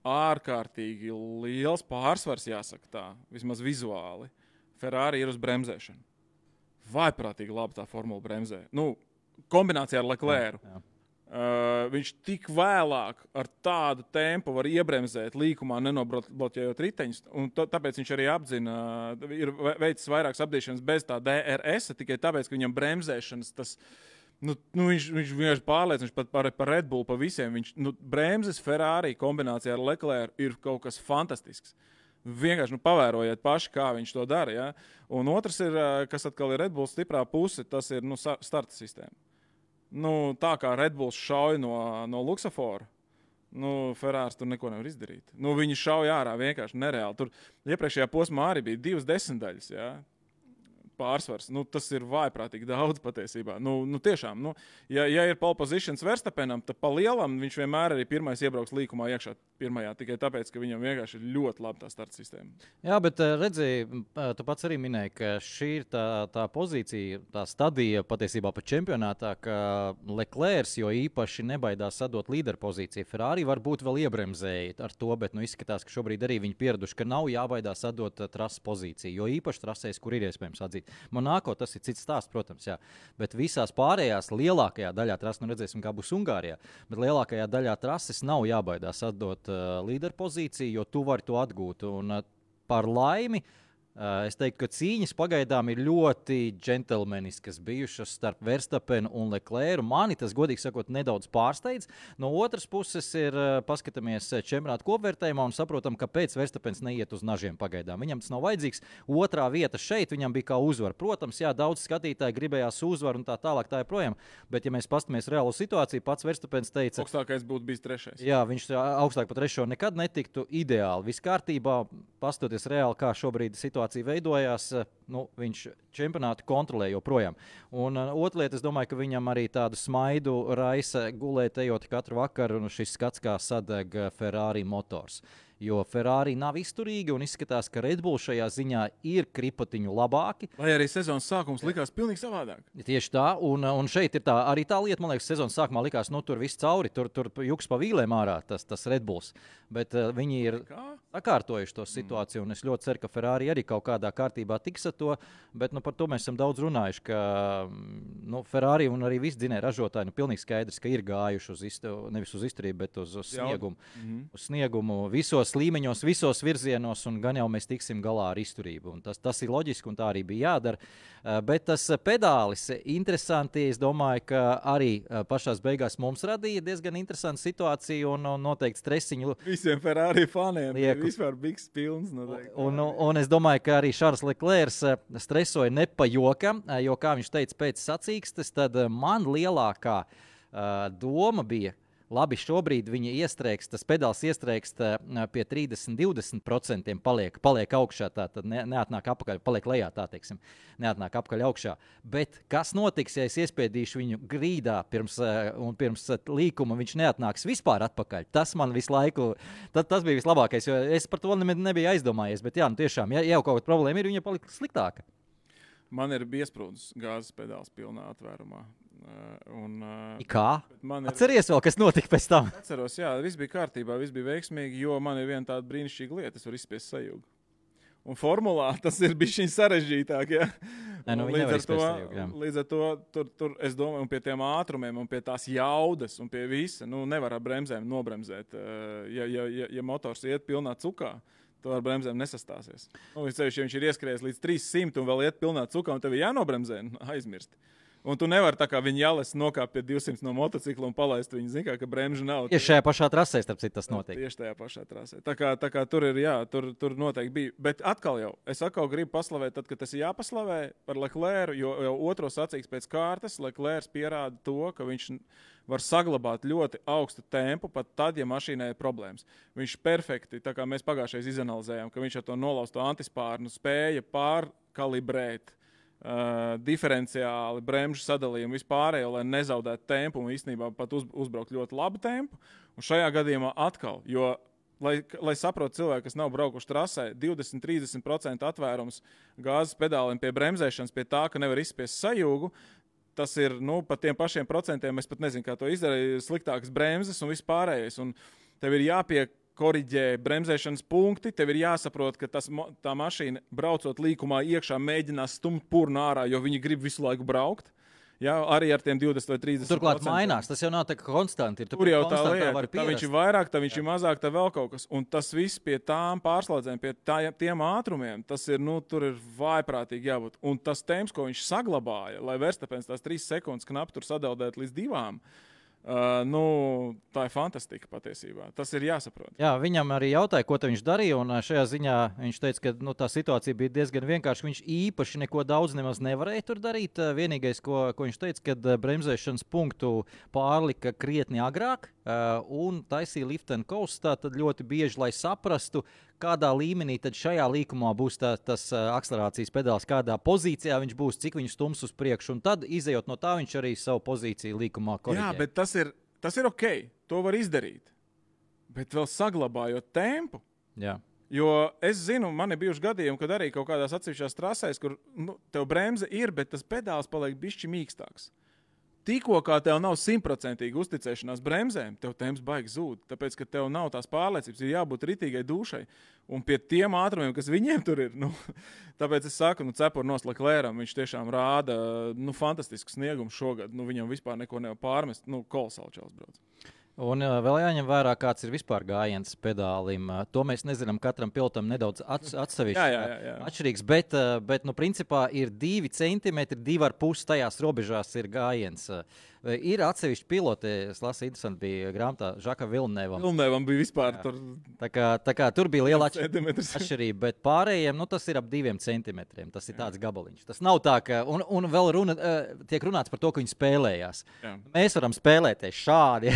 ārkārtīgi liels pārsvars, jāsaka tā, vismaz vizuāli. Ferrari ir uz bremzēšanu. Vaiprātīgi labi tā formula bremzē. Kombinācijā ar Leclercu. Jā. Viņš tik vēlāk ar tādu tempu var iebremzēt līkumā, nenobloķējot riteņus, un tāpēc viņš arī apzina, ir veicis vairākas apdīšanas bez tā DRS, tikai tāpēc, ka viņam bremzēšanas tas, viņš vienkārši pārliecināts par Red Bull, pa visiem. Bremzes Ferrari kombinācijā ar Leclercu ir kaut kas fantastisks. Vienkārši pavērojiet paši, kā viņš to dara. Ja? Un otrs ir, kas atkal ir Red Bull stiprā puse, tas ir starta sistēma. Tā kā Red Bulls šauj no luksafora, Ferrari tur neko nevar izdarīt. Viņi šauj ārā vienkārši nereāli. Tur iepriekšējā posmā arī bija 2 desmitaļas, ja? Pārsvars. Tas ir vaiprātīgi daudz patiesībā. Tiešām, ja ir pole positions Verstappenam, tad pa lielam viņš vienmēr arī pirmais iebrauks līkumā iekšā pirmajā, tikai tāpēc, ka viņam vienkārši ir ļoti labi tā starta sistēma. Jā, bet redzēji, tu pats arī minēji, ka šī ir tā pozīcija, tā stadija patiesībā pat čempionātā, ka Leclerc jo īpaši nebaidās sadot līderu pozīciju. Ferrari varbūt vēl iebremzēja ar to, bet izskatās, ka šobrīd arī viņi pieraduši, ka nav jābaidās sadot trases pozīciju, jo īpaši trasēs, kur ir iespējams atzīt. Monako tas ir cits stāsts, protams, jā. Bet visās pārējās lielākajā daļā trases, redzēsim, kā būs Ungārijā, bet lielākajā daļā trases nav jābaidās atdot līderu pozīciju, jo tu vari to atgūt. Un par laimi Es teiktu, ka cīņas pagaidām ir ļoti džentelmeniskas bijušas starp Verstapenu un Leclercu. Mani tas, godīgi sakot, nedaudz pārsteidz. No otras puses, paskatāmies čempionāta kopvērtējumā un saprotam, kāpēc Verstapens neiet uz nažiem pagaidām. Viņam tas nav vajadzīgs. Otrā vieta šeit viņam bija kā uzvara. Protams, jā, daudz skatītāji gribējās uzvaru un tā tālāk tā joprojām. Bet, ja mēs paskatāmies reālo situāciju, pats Verstapens teica, augstākais būtu bijis 3. Jā, viņš augstāk par 3. nekad netiktu ideāli. Viss kārtībā, pastoties reāli, kā šobrīd situācija veidojās, viņš čempionātu kontrolē joprojām. Un otra lieta, es domāju, ka viņam arī tādu smaidu raisa gulēt ejot katru vakaru, un šis skats, kā sadeg Ferrari motors. Jo Ferrari nav izturīgi un izskatās, ka Red Bull šajā ziņā ir kripotiņu labāki. Lai arī sezonas sākums likās pilnīgi savādāk. Tieši tā, un šeit ir tā, arī tā lieta, man liekas, sezonas sākumā likās, tur viss cauri, tur juks pa vīlēm ārā tas Red Bulls. Bet viņi ir sakārtojuši to situāciju, un es ļoti ceru, ka Ferrari arī kaut kādā kārtībā tiks ar to, bet par to mēs esam daudz runājuši, ka Ferrari un arī visi dzinēji ražotāji, pilnīgi skaidrs, ka ir gājuši nevis uz izturību, bet uz sniegumu. Uz sniegumu visos līmeņos, visos virzienos, un gan jau mēs tiksim galā ar izturību. Un tas ir loģiski, un tā arī bija jādara. Bet tas pedālis interesanti, es domāju, ka arī pašās beigās mums radīja diezgan interesantu situāciju un noteikti stresiņu. Visiem Ferrari faniem bija vispār bigs pilns. Un es domāju, ka arī Charles Leclerc stresoja ne pa jokam, jo, kā viņš teica pēc sacīkstes, tad man lielākā doma bija, labi, šobrīd viņa iestrēgst, tas pedāls iestrēgst pie 30-20% paliek augšā, tā tad neatnāk apakaļ, paliek lejā, tā teiksim, neatnāk apakaļ augšā. Bet kas notiks, ja es iespiedīšu viņu grīdā pirms līkuma, viņš neatnāks vispār atpakaļ? Tas man visu laiku, tas bija vislabākais, jo es par to nebiju aizdomājies, bet jā, tiešām, ja jau kaut kāda problēma ir, viņa palika sliktāka. Man ir biesprūdis gāzes pedāls pilnā atvērumā. Kā? Atceries vēl, kas notika pēc tam? Atceros, jā, viss bija kārtībā, viss bija veiksmīgi, jo man ir viena tāda brīnišķīga lieta, es varu izspiest sajūgu. Un formulā tas ir bišķiņ sarežģītāk, ja? Līdz ar to tur, es domāju, un pie tiem ātrumiem, un pie tās jaudas, un pie visa, nevar ar bremzēm nobremzēt. Ja motors iet pilnā cukā, to ar bremzēm nesastāsies. Ja viņš ir ieskrējies līdz 300 un vēl iet pilnā cukā, un tev ir jānobremzē, aizmirst. Un tu nevari tā kā viņa jāles nokāpt pie 200 no motocikla un palaist viņu, zin kā, ka bremžu nav. Tieši šajā pašā trasē, starp citu, tas notiek. Tieši tajā pašā trasē. Tā kā tur ir, jā, tur noteikti bija. Bet atkal es gribu paslavēt, tad, kad tas ir jāpaslavē par Leclercu, jo jau otro sacīks pēc kārtas Leclercs pierāda to, ka viņš var saglabāt ļoti augstu tempu, pat tad, ja mašīnai ir problēmas. Viņš perfekti, tā kā mēs pagājušais izanalizējām, ka viņš ar to nolausto antispārnu spēja pārkalibrēt diferenciāli bremžu sadalījumu vispārējo, lai nezaudētu tempu un īstenībā pat uzbraukt ļoti labu tempu. Un šajā gadījumā atkal, jo, lai saprotu cilvēki, kas nav braukuši trasē, 20-30% atvērums gāzes pedāliem pie bremzēšanas, pie tā, ka nevar izspiest sajūgu, tas ir, pa tiem pašiem procentiem, es pat nezinu, kā to izdarīja, sliktākas bremzes un vispārējais. Un tev ir jāpiekoriģē bremzēšanas punkti, tev ir jāsaprot, ka tā mašīna braucot līkumā iekšā mēģinās stumt purnu ārā, jo viņi grib visu laiku braukt. Jā, arī ar tiem 20 vai 30%. Turklāt mainās, tas jau nav tā kā konstanti. Tur jau tā lieta, tā viņš ir vairāk, tā viņš ir mazāk, tā vēl kaut kas. Un tas viss pie tām pārslēdzēm, pie tiem ātrumiem, tas ir, tur ir vājprātīgi jābūt. Un tas temps, ko viņš saglabāja, lai Verstapens tās 3 sekundes knapi tur sadaldēt līdz 2, tā ir fantastika patiesībā. Tas ir jāsaprot. Jā, viņam arī jautāja, ko viņš darīja, un šajā ziņā viņš teica, ka tā situācija bija diezgan vienkārša. Viņš īpaši neko daudz nemaz nevarēja tur darīt. Vienīgais, ko viņš teica, kad bremzēšanas punktu pārlika krietni agrāk un taisīja lift and coast, tad ļoti bieži, lai saprastu, kādā līmenī tad šajā līkumā būs tas akcelerācijas pedāls, kādā pozīcijā viņš būs, cik viņš stums uz priekšu, un tad, izejot no tā, viņš arī savu pozīciju līkumā koriģē. Jā, bet tas ir ok, to var izdarīt, bet vēl saglabājot tempu. Jā. Jo es zinu, man ir bijuši gadījumi, kad arī kaut kādās atsevišķās trasēs, kur tev bremze ir, bet tas pedāls paliek bišķi mīkstāks. Tikko kā tev nav 100% uzticēšanās bremzēm, tev temps baigi zūd, tāpēc, ka tev nav tās pārliecības, ir jābūt ritīgai dušai. Un pie tiem ātrumiem, kas viņiem tur ir, tāpēc es saku, cepurnos Leclercam, viņš tiešām rāda fantastisku sniegumu šogad. Viņam vispār neko nevar pārmest, kolosāli čels brauc. Un vēl jāņem vērā, kāds ir vispār gājiens pedālim. To mēs nezinām, katram pilotam nedaudz atsevišķi atšķirīgs, bet nu, principā ir 2 centimetri, 2,5 tajās robežās ir gājiens. Ir atsevišķi piloti, es lasu, interesanti bija grāmatā Žaka Vilnevam. Vilnevam bija vispār tur. Tā kā tur bija liela atšķirība, bet pārējiem, nu, tas ir ap 2 centimetriem. Tas ir tāds gabaliņš. Tas nav tā, ka, un vēl tiek runāts par to, ka viņi spēlējās. Jā. Mēs varam spēlēties šādi,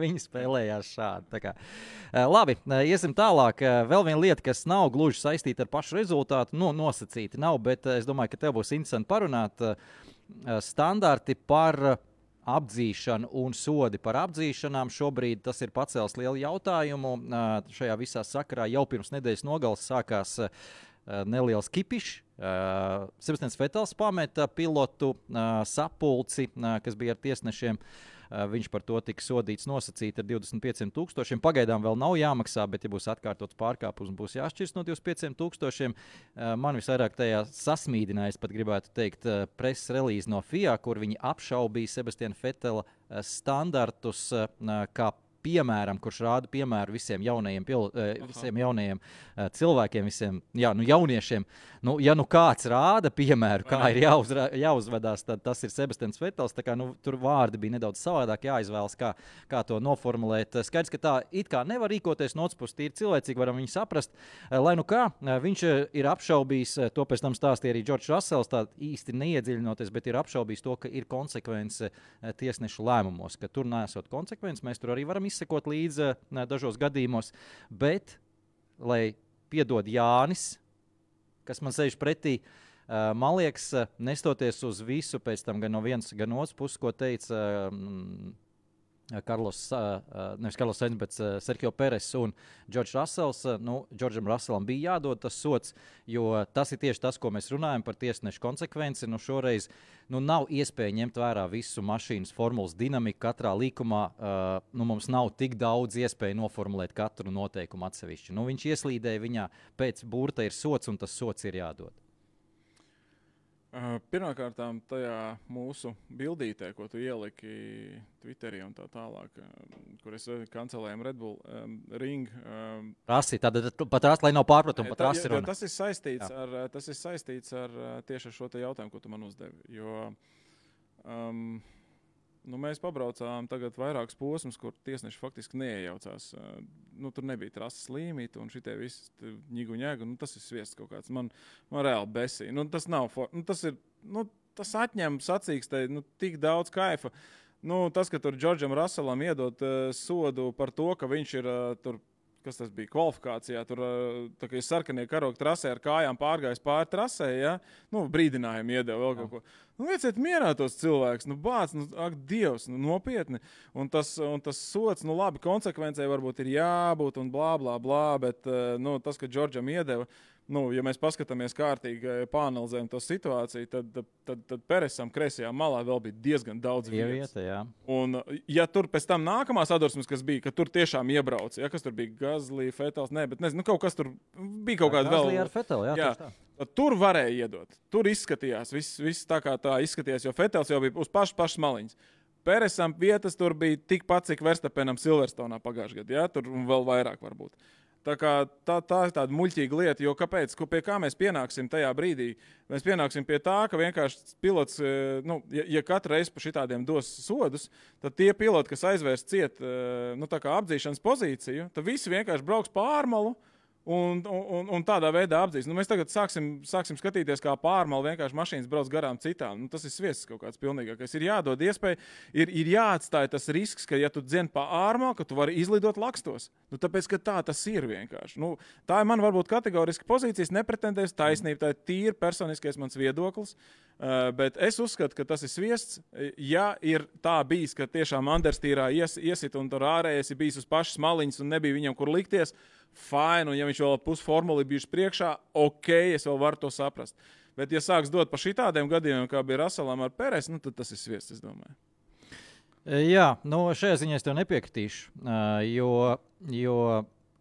viņi spēlējās šādi. Tā kā. Labi, iesim tālāk. Vēl viena lieta, kas nav gluži saistīta ar pašu rezultātu, nosacīti nav, bet es domāju, ka tev būs interesanti parunāt standarti par apdzīšanu un sodi par apdzīšanām. Šobrīd tas ir pacēlis lielu jautājumu. Šajā visā sakarā jau pirms nedēļas nogales sākās neliels kipišs. Sebastians Vetels pameta pilotu sapulci, kas bija ar tiesnešiem. Viņš par to tika sodīts nosacīti ar 25,000. Pagaidām vēl nav jāmaksā, bet, ja būs atkārtots pārkāpums, būs jāšķirs no 25,000. Man visvairāk tajā sasmīdināja, es pat gribētu teikt, preses relīze no FIA, kur viņi apšaubīja Sebastiana Vetela standartus, kā piemēram, kurš rāda piemēru visiem jaunajiem cilvēkiem, visiem jauniešiem. Ja kāds rāda piemēru, kā ir jāuzvedās, tad tas ir Sebastians Vetels. Tā kā, tur vārdi bija nedaudz savādāk jāizvēlas, kā to noformulēt. Skaidrs, ka tā it kā nevar rīkoties no otras puses, tīri cilvēcīgi varam viņu saprast. Lai nu kā, viņš ir apšaubījis, to pēc tam stāstīja arī Džordžs Rasels, tā īsti neiedziļinoties, bet ir apšaubījis to, ka ir konsekvence tiesnešu lēmumos, ka tur nesot konsekvences, mēs tur arī varam izsekot līdzi dažos gadījumos, bet, lai piedod Jānis, kas man sēž pretī, man liekas, nestoties uz visu pēc tam gan no vienas, gan otras puses, ko teica nevis Karlos Sainz, bet Sergio Perez un Džordžs Rasels. Džordžam Raselam bija jādod tas sots, jo tas ir tieši tas, ko mēs runājam par tiesnešu konsekvenci. Šoreiz nav iespēja ņemt vērā visu mašīnas formulas dinamiku katrā līkumā. Mums nav tik daudz iespēju noformulēt katru noteikumu atsevišķi. Viņš ieslīdēja viņā, pēc burta ir sots, un tas sots ir jādod. Pirmkārt, tajā mūsu bildītē, ko tu ieliki Twitterī un tā tālāk, kur es kancelēju Red Bull Ring. Rasi, tad pat rasi, lai nav pārpratumu, pat rasi runa. Tas ir saistīts ar tieši ar šo te jautājumu, ko tu man uzdevi. Jo mēs pabraucām tagad vairākus posmus, kur tiesneši faktiski neiejaucās. Tur nebija trases līmīti un šitie visi ņigu. Tas ir sviests kaut kāds. Man reāli besīja. Tas nav, tas atņem sacīkstē tik daudz kaifa. Tas, ka tur Džordžam Raselam iedot sodu par to, ka viņš ir tur, kas tas bija, kvalifikācijā, tur tā kā ir sarkanie karogi trasē ar kājām pārgājis pāri trasē, ja? Brīdinājumu iedeva vēl kaut ko. Lieciet mierā tos cilvēkus, bāc, ak, Dievs, nopietni. Un tas sots, labi, konsekvencei varbūt ir jābūt un blā, blā, blā, bet tas, ka Džordžam iedeva, ja mēs paskatāmies kārtīgi, pāanalizējam to situāciju, tad Peresam kreisajā malā vēl bija diezgan daudz vietas. Un, ja tur pēc tam nākamās sadursmes, kas bija, ka tur tiešām iebrauc, ja, kas tur bija Gazlī, Fetels, bet nezinu, kaut kas tur bija kaut kāda vēl. Gazlī ar Feteli, jā. Tur varēja iedot. Tur izskatījās, viss tā kā tā izskatījās, jo Fetels jau bija uz pašas maliņas. Peresam vietas tur bija tikpat, cik Verstapenam Silverstonā pagājušajā gadā, ja, tur vēl vairāk varbūt. Tā ir tāda muļķīga lieta, jo kāpēc, pie kā mēs pienāksim tajā brīdī? Mēs pienāksim pie tā, ka vienkārši pilots, ja katru reizi pa šitādiem dos sodus, tad tie piloti, kas aizvērs ciet, tā kā apdzīšanas pozīciju, tad visi vienkārši brauks pārmalu un tādā veidā apdzīs. Mēs tagad sāksim skatīties, kā pārmalu vienkārši mašīnas brauc garām citām. Tas ir sviests kaut kāds pilnīgākais. Ir jādod iespēja, ir jāatstāj tas risks, ka ja tu dzen pa ārmalu, ka tu vari izlidot lakstos. Tāpēc, ka tā tas ir vienkārši. Tā ir man varbūt kategoriski pozīcijas, nepretendēs taisnība, tā ir tīri personiskais mans viedoklis, bet es uzskatu, ka tas ir sviests. Ja ir tā bijis, ka tiešām Anderstīrā iesit un tur ārējais ir bijis uz pašas maliņas un nebija viņam kur likties, fine, un ja viņš vēl pusformuli bijuši priekšā, ok, es vēl varu to saprast. Bet ja sāks dot pa šitādiem gadījumiem, kā bija Raselam ar Peres, tad tas ir sviests, es domāju. Jā, šajā ziņā es tev nepiekritīšu, jo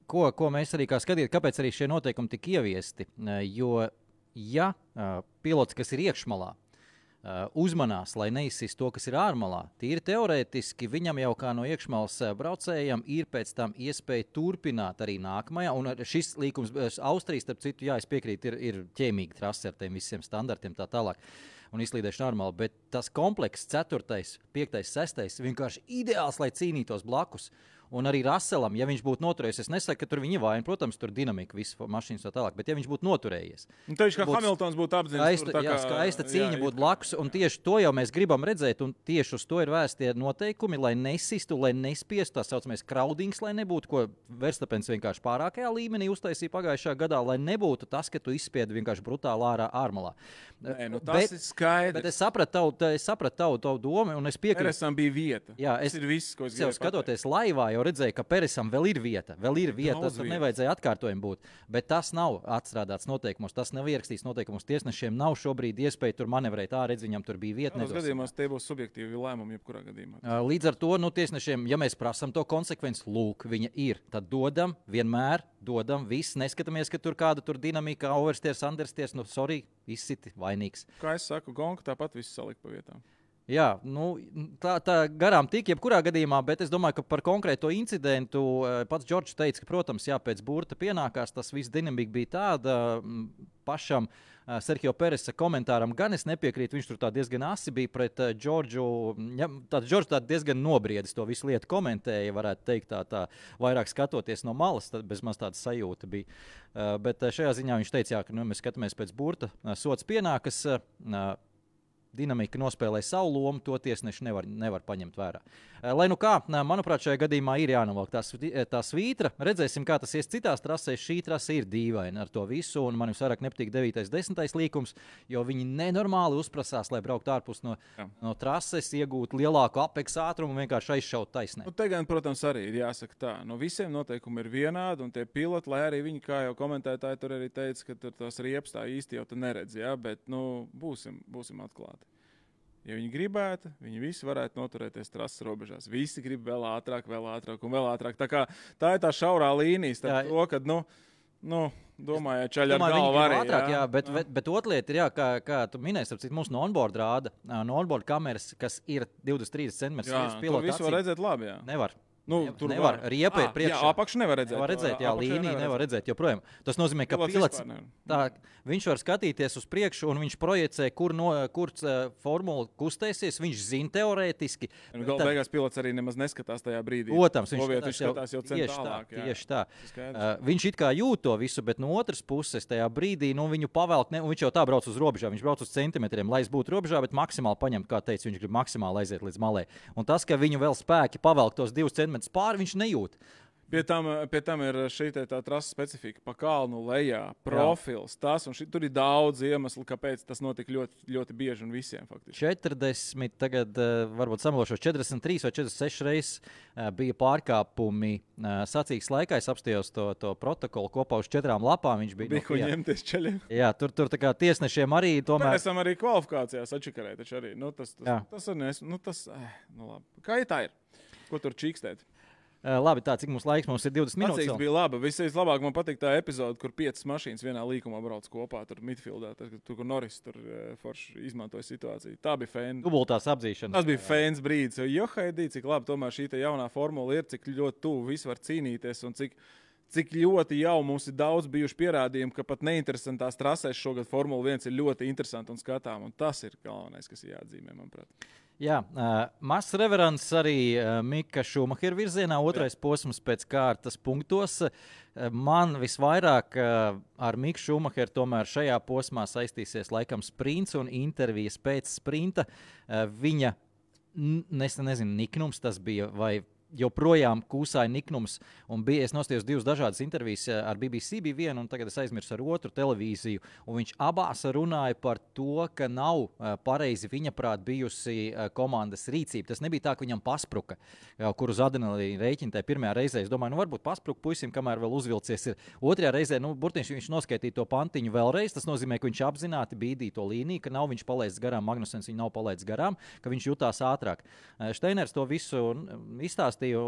ko mēs arī kā skatīt, kāpēc arī šie noteikumi tika ieviesti, jo ja pilots, kas ir iekšmalā, uzmanās, lai neizsist to, kas ir ārmalā. Tīri teorētiski viņam jau kā no iekšmalas braucējiem ir pēc tam iespēja turpināt arī nākamajā. Un šis līkums Austrijas, starp citu, jā, es piekrītu, ir ķēmīga trase ar tiem visiem standartiem tā tālāk. Un izslīdēšana normāli, bet tas komplekss 4., 5., 6. vienkārši ideāls, lai cīnītos blakus. Un arī Russellam, ja viņš būtu noturējies, es nesaku, ka tur viņa vaina, protams, tur dinamika, visas mašīnas tā tālāk, bet ja viņš būtu noturējies. Un tieši kā Hamiltons būtu apzināts. Skaista cīņa būtu blakus, un tieši to jau mēs gribam redzēt, un tieši uz to ir vēstie noteikumi, lai nesistu, lai nespiestu tā saucamais crowdings, lai nebūtu, ko Verstappens vienkārši pārākajā līmenī uztaisīja pagājušā gadā, lai nebūtu tas, ka tu izspiedi vienkārši brutāli ārmalā. Nē, tas ir skaidrs. Bet es sapratu tavu domu, un es piekrītu. Peresam bija vieta. Jā, tas ir viss, ko es gribēju skatoties laivā, jau redzēju, ka Peresam vēl ir vieta. Tas tur nevajadzēja atkārtojumi būt. Bet tas nav atstrādāts noteikumos, tas nav ierakstīts noteikumos. Tiesnešiem nav šobrīd iespēja tur manevrēt. Redz, viņam tur bija vieta. Tādos gadījumos tie būs subjektīvi lēmumi, jebkurā gadījumā. Līdz ar to tiesnešiem, ja mēs prasam to konsekvenci, lūk, viņa ir. Tad dodam, vienmēr dodam, viss. Neskatāmies, ka tur kāda tur dinamika, oversteers, understeers, sorry, izsiti vainīgs. Kā es saku, gonka tāpat viss salikt pa vietām. Jā, tā garām tik jebkurā gadījumā, bet es domāju, ka par konkrēto incidentu pats Džordžs teica, ka, protams, jā, pēc burta pienākās, tas viss dinamika bija tāda pašam Sergio Peresa komentāram, gan es nepiekrītu, viņš tur tā diezgan asi bija pret Džordžu, Džordžs tā diezgan nobriedis to visu lietu komentēja, varētu teikt tā vairāk skatoties no malas, tad bez maz tāda sajūta bija. Bet šajā ziņā viņš teica, jā, ka mēs skatāmies pēc burta, sots pienākas, dinamika nospēlē savu lomu, to tiesneši nevar paņemt vērā. Lai nu kā, manuprāt, šajā gadījumā ir jānovelk tā svītra. Redzēsim, kā tas ies citās trasēs. Šī trase ir dīvaina ar to visu, un man visvairāk nepatīk 9. 10. līkums, jo viņi nenormāli uzprasās, lai brauktu ārpus no trases, iegūtu lielāku apeksa ātrumu un vienkārši aizšaut taisnē. Te gan, protams, arī ir jāsaka tā. No visiem noteikumi ir vienādi, un tie piloti, lai arī viņi, kā jau komentētāji tur arī teica, ka tur tās riepas tā īsti jau te neredz, jā, bet, būsim atklāti. Ja viņi gribētu, viņi visi varētu noturēties trases robežās. Visi grib vēl ātrāk un vēl ātrāk. Tā ir tā šaurā līnija starp to, kad, domāju, čaļi ar galvu arī. Ātrāk, jā, bet otra lieta ir, jā, kā tu minēsi, mums no onboard rāda, no onboard kameras, kas ir 20-30 cm. Jā, tur visu var redzēt labi, jā. Nevar. Tur nevar. Riepa ir priekšā. Jā, apakšu nevar redzēt. Nevar redzēt, jā, līniju nevar redzēt joprojām. Tas nozīmē, ka pilots viņš var skatīties uz priekšu un viņš projicē, kur formula kustēsies. Viņš zina teorētiski. Galu beigās pilots arī nemaz neskatās tajā brīdī. Protams, viņš skatās jau centālāk. Tieši tā. Viņš it kā jūt to visu, bet no otras puses tajā brīdī viņu pavelk, un viņš jau tā brauc uz robežām. Viņš brauc uz centimetriem, lai es būtu robežā, bet maksimāli paņemt, kā teica, viņš grib maksimāli aiziet līdz malē. Un tas, ka viņu vēl spēki pavelk tos 2 centimetrus pāri, viņš nejūt. Pie tam ir šī tā trases specifika, pa kalnu lejā, profils, tas, un tur ir daudz iemeslu, kāpēc tas notika ļoti, ļoti bieži un visiem faktiski. 40, tagad varbūt samalošos 43 vai 46 reizes bija pārkāpumi sacīgas laikā. Es apstījos to protokolu kopā uz 4 lapām. Viņš bija ko ņemties ceļiem. Jā, tur tā kā tiesnešiem arī tomēr. Mēs esam arī kvalifikācijās atšakarēt, taču arī. Labi. Kā tā ir? Ko tur čīkstēt? Labi, cik mums laiks? Mums ir 20 minūtes. Tas bija labi. Vislabāk man patīk tā epizode, kur 5 mašīnas vienā līkumā brauc kopā, tur midfieldā, tur, kur Norris tur forši izmantoja situāciju. Tā bija fēna. Dubultās apzīšanas. Tas bija fēns brīdis, jo haidī, cik labi tomēr šī jaunā formula ir, cik ļoti tuvu visi var cīnīties un cik ļoti jau mums ir daudz bijuši pierādījumi, ka pat neinteresantās trasēs šogad Formula 1 ir ļoti interesanti un skatām, un tas ir galvenais, kas ir jāatzīmē, manuprāt. Jā, mazs reverants arī Mika Šumahera virzienā, otrais posms pēc kārtas punktos. Man visvairāk ar Miku Šumaheru tomēr šajā posmā saistīsies laikam sprints un intervijas pēc sprinta. Viņa, nezinu, niknums tas bija vai joprojām kūsāja niknums, un es nostājos 2 dažādas intervijas ar BBC bija viena, un tagad es aizmirsu ar otru televīziju, un viņš abās runāja par to, ka nav pareizi viņa prāt bijusi komandas rīcība. Tas nebija tā, ka viņam paspruka, kur uz adrenalīna rēķina tajā pirmajā reizē. Es domāju, varbūt paspruka puisim, kamēr vēl uzvilcies ir. Otrajā reizē, burtiski viņš noskaitīja to pantiņu vēlreiz, tas nozīmē, ka viņš apzināti bīdīja to līniju, ka nav viņš palaists garām, Magnusens viņu nav palaists garām, ka viņš jutās ātrāk. Steiners to visu izstāstīja. pastāstīju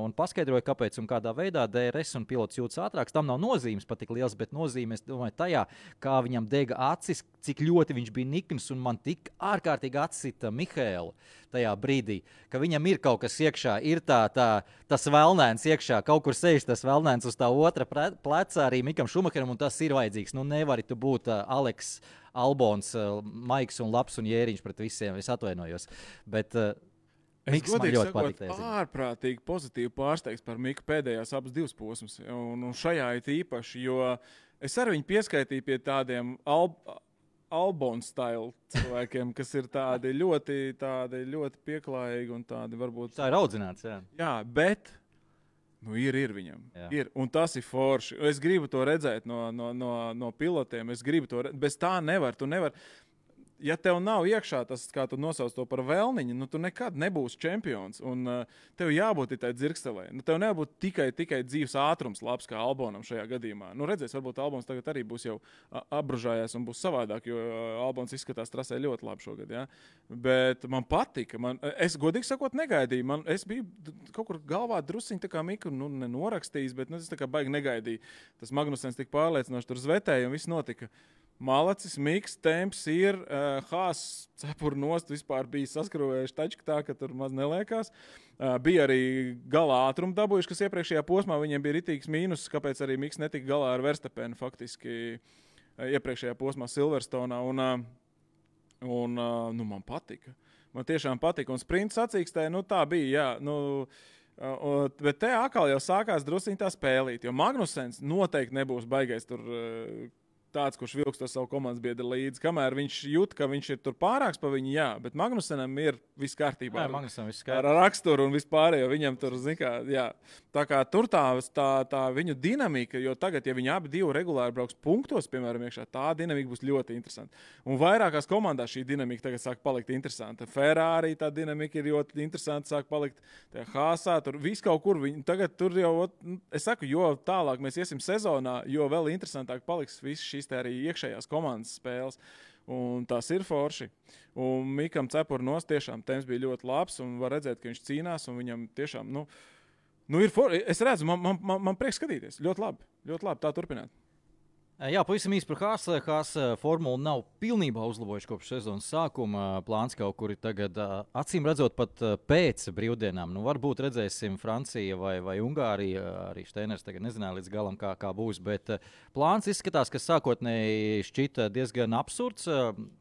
un paskaidroju, kāpēc un kādā veidā DRS un pilots jūtas ātrāks. Tam nav nozīmes pat tik liels, bet nozīme, es domāju, tajā, kā viņam dega acis, cik ļoti viņš bija nikns, un man tik ārkārtīgi atsita Mihēlu tajā brīdī, ka viņam ir kaut kas iekšā, ir tas velnēns iekšā, kaut kur sēž tas velnēns uz tā otra pleca arī Mikam Šumacheram, un tas ir vajadzīgs. Nu, nevari tu būt Aleks Albons, Maiks un Labs un Jēriņš pret visiem, es atvainojos. Bet Miks man ļoti patīk. Ārprātīgi pozitīvi pārsteigts par Miku pēdējās abas divas posmas, un šajā it īpaši, jo es arī viņu pieskaitīju pie tādiem Albon style cilvēkiem, kas ir tādi ļoti pieklājīgi un tādi varbūt... Tā ir audzināts, jā. Jā, bet... Nu, ir viņam. Jā. Ir. Un tas ir forši. Es gribu to redzēt no pilotiem. Es gribu to redzēt. Bez tā nevar. Tu nevar. Ja tev nav iekšā tas, kā tu nosauc to par vēlniņu, nu tu nekad nebūsi čempions. Un tev jābūt tai dzirkstelē. Nu, tev nebūt tikai dzīves ātrums labs kā Albonam šajā gadījumā. Nu, redzēs, varbūt Albons tagad arī būs jau apbružājies un būs savādāk, jo Albons izskatās trasē ļoti labi šogad. Ja? Bet man patika. Es godīgi sakot negaidīju. Es biju kaut kur galvā drusciņi tā kā Miku nenorakstījis, bet es tā kā baigi negaidīju. Tas Magnusens tik pārliecinoši tur zvetēja un viss notika. Malacis, Miks, temps ir, Haas cepuru nost vispār bija saskrūvējuši taču tā, ka tur maz neliekās. Bija arī galā ātrumu dabūjuši, kas iepriekšējā posmā viņiem bija ritīgs mīnus, kāpēc arī Miks netika galā ar Verstapenu faktiski iepriekšējā posmā Silverstonā. Un man patika. Man tiešām patika. Un sprints sacīkstē, tā bija, jā. Bet te atkal jau sākās drusciņ tā spēlīt, jo Magnusens noteikti nebūs baigais tur... tāds, kurš vilks to savu komandas biedru līdzi. Kamēr viņš jūt, ka viņš ir tur pārāks pa viņu, jā, bet Magnusenam ir viss kārtībā. Ar raksturu un vispārējo viņam tur, jā. Tā kā tur tā viņu dinamika, jo tagad, ja viņi abi divi regulāri brauks punktos, piemēram, iekšā, tā dinamika būs ļoti interesanta. Un vairākās komandās šī dinamika tagad sāk palikt interesanta. Ferrari tā dinamika ir ļoti interesanta, sāk palikt Haasā, tur viss kaut kur. Tagad tur jau, es saku, jo tālāk mēs iesim sezonā, jo vēl interesantāk paliks viss šīs arī iekšējās komandas spēles. Un tas ir forši. Un Mikam Cepurnos tiešām temps bija ļoti labs un var redzēt, ka viņš cīnās un viņam tiešām, ir forši. Es redzu, man prieks skatīties. Ļoti labi, tā turpināt. Jā, pavisam īsi par Haas. Haas formulu nav pilnībā uzlabojuši kopš sezonas sākuma. Plāns kaut kur ir tagad, acīm redzot, pat pēc brīvdienām. Varbūt redzēsim Francija vai Ungārija. Arī Steiners tagad nezināja līdz galam, kā būs. Bet plāns izskatās, ka sākotnēji šķita diezgan absurds.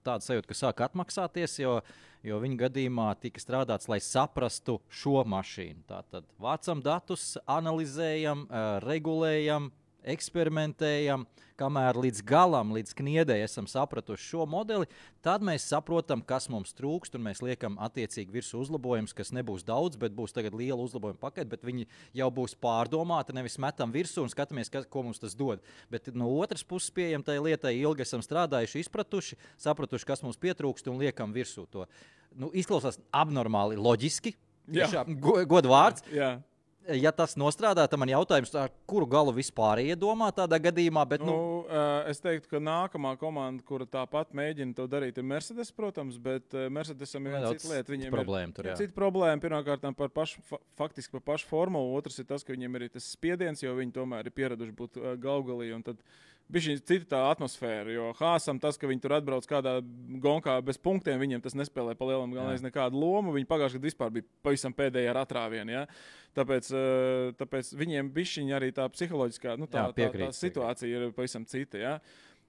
Tāds sajūta, ka sāk atmaksāties, jo viņa gadījumā tika strādāts, lai saprastu šo mašīnu. Tātad vācam datus, analizējam, regulējam, eksperimentējam, kamēr līdz galam, līdz kniedei esam sapratuši šo modeli, tad mēs saprotam, kas mums trūkst, un mēs liekam attiecīgi virsū uzlabojumus, kas nebūs daudz, bet būs tagad liela uzlabojuma pakete, bet viņi jau būs pārdomāti, nevis metam virsū un skatāmies, ko mums tas dod. Bet no otras puses pieejam tai lietai, ilgi esam strādājuši, izpratuši, sapratuši, kas mums pietrūkst un liekam virsū to. Izklausās abnormāli loģiski, godu vārds. Jā. Ja tas nostrādā, tad man jautājums, ar kuru galu vispār iedomā tādā gadījumā? Bet, es teiktu, ka nākamā komanda, kura tāpat mēģina to darīt, ir Mercedes, protams, bet Mercedesam ir viena cita lieta. Viņiem ir cita problēma. Pirmkārt, faktiski par pašu formulu. Otrs ir tas, ka viņiem ir tas spiediens, jo viņi tomēr ir pieraduši būt galgalī. Un tad bija cita tā atmosfēra, jo Haasam tas, ka viņi tur atbrauc kādā gonkā bez punktiem, viņiem tas nespēlē pa lielam galvenais nekādu lomu. Viņi pagājušajā gadā vispār bija pavisam pēdējā ar atrāvienu. Ja? Tāpēc viņiem bišķiņi arī tā psiholoģiskā tā situācija ir pavisam cita. Ja?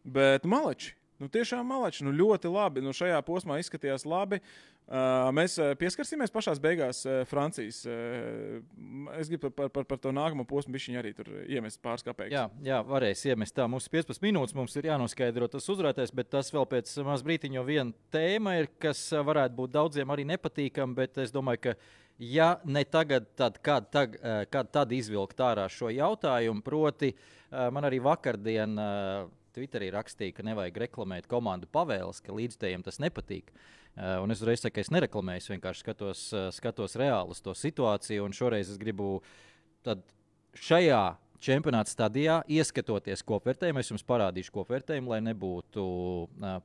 Bet maleči. Tiešām maleči. Ļoti labi. Šajā posmā izskatījās labi. Mēs pieskarsimies pašās beigās Francijas. Es gribu par to nākamo posmu bišķiņu arī tur iemest pāris kapeikas. Jā, varēs iemest tā. Mums 15 minūtes, mums ir jānoskaidro tas uzvarētājs, bet tas vēl pēc maz brītiņo viena tēma ir, kas varētu būt daudziem arī nepatīkam, bet es domāju, ka ja ne tagad, tad kad izvilkt ārā šo jautājumu, proti man arī vakardien Twitterī rakstīja, ka nevajag reklamēt komandu pavēles, ka līdzstājiem tas nepatīk. Un es uzreiz saku, ka es nereklamēju, es vienkārši skatos reāli uz to situāciju, un šoreiz es gribu tad šajā čempionāta stadijā, ieskatoties kopvērtējumu, es jums parādīšu kopvērtējumu, lai nebūtu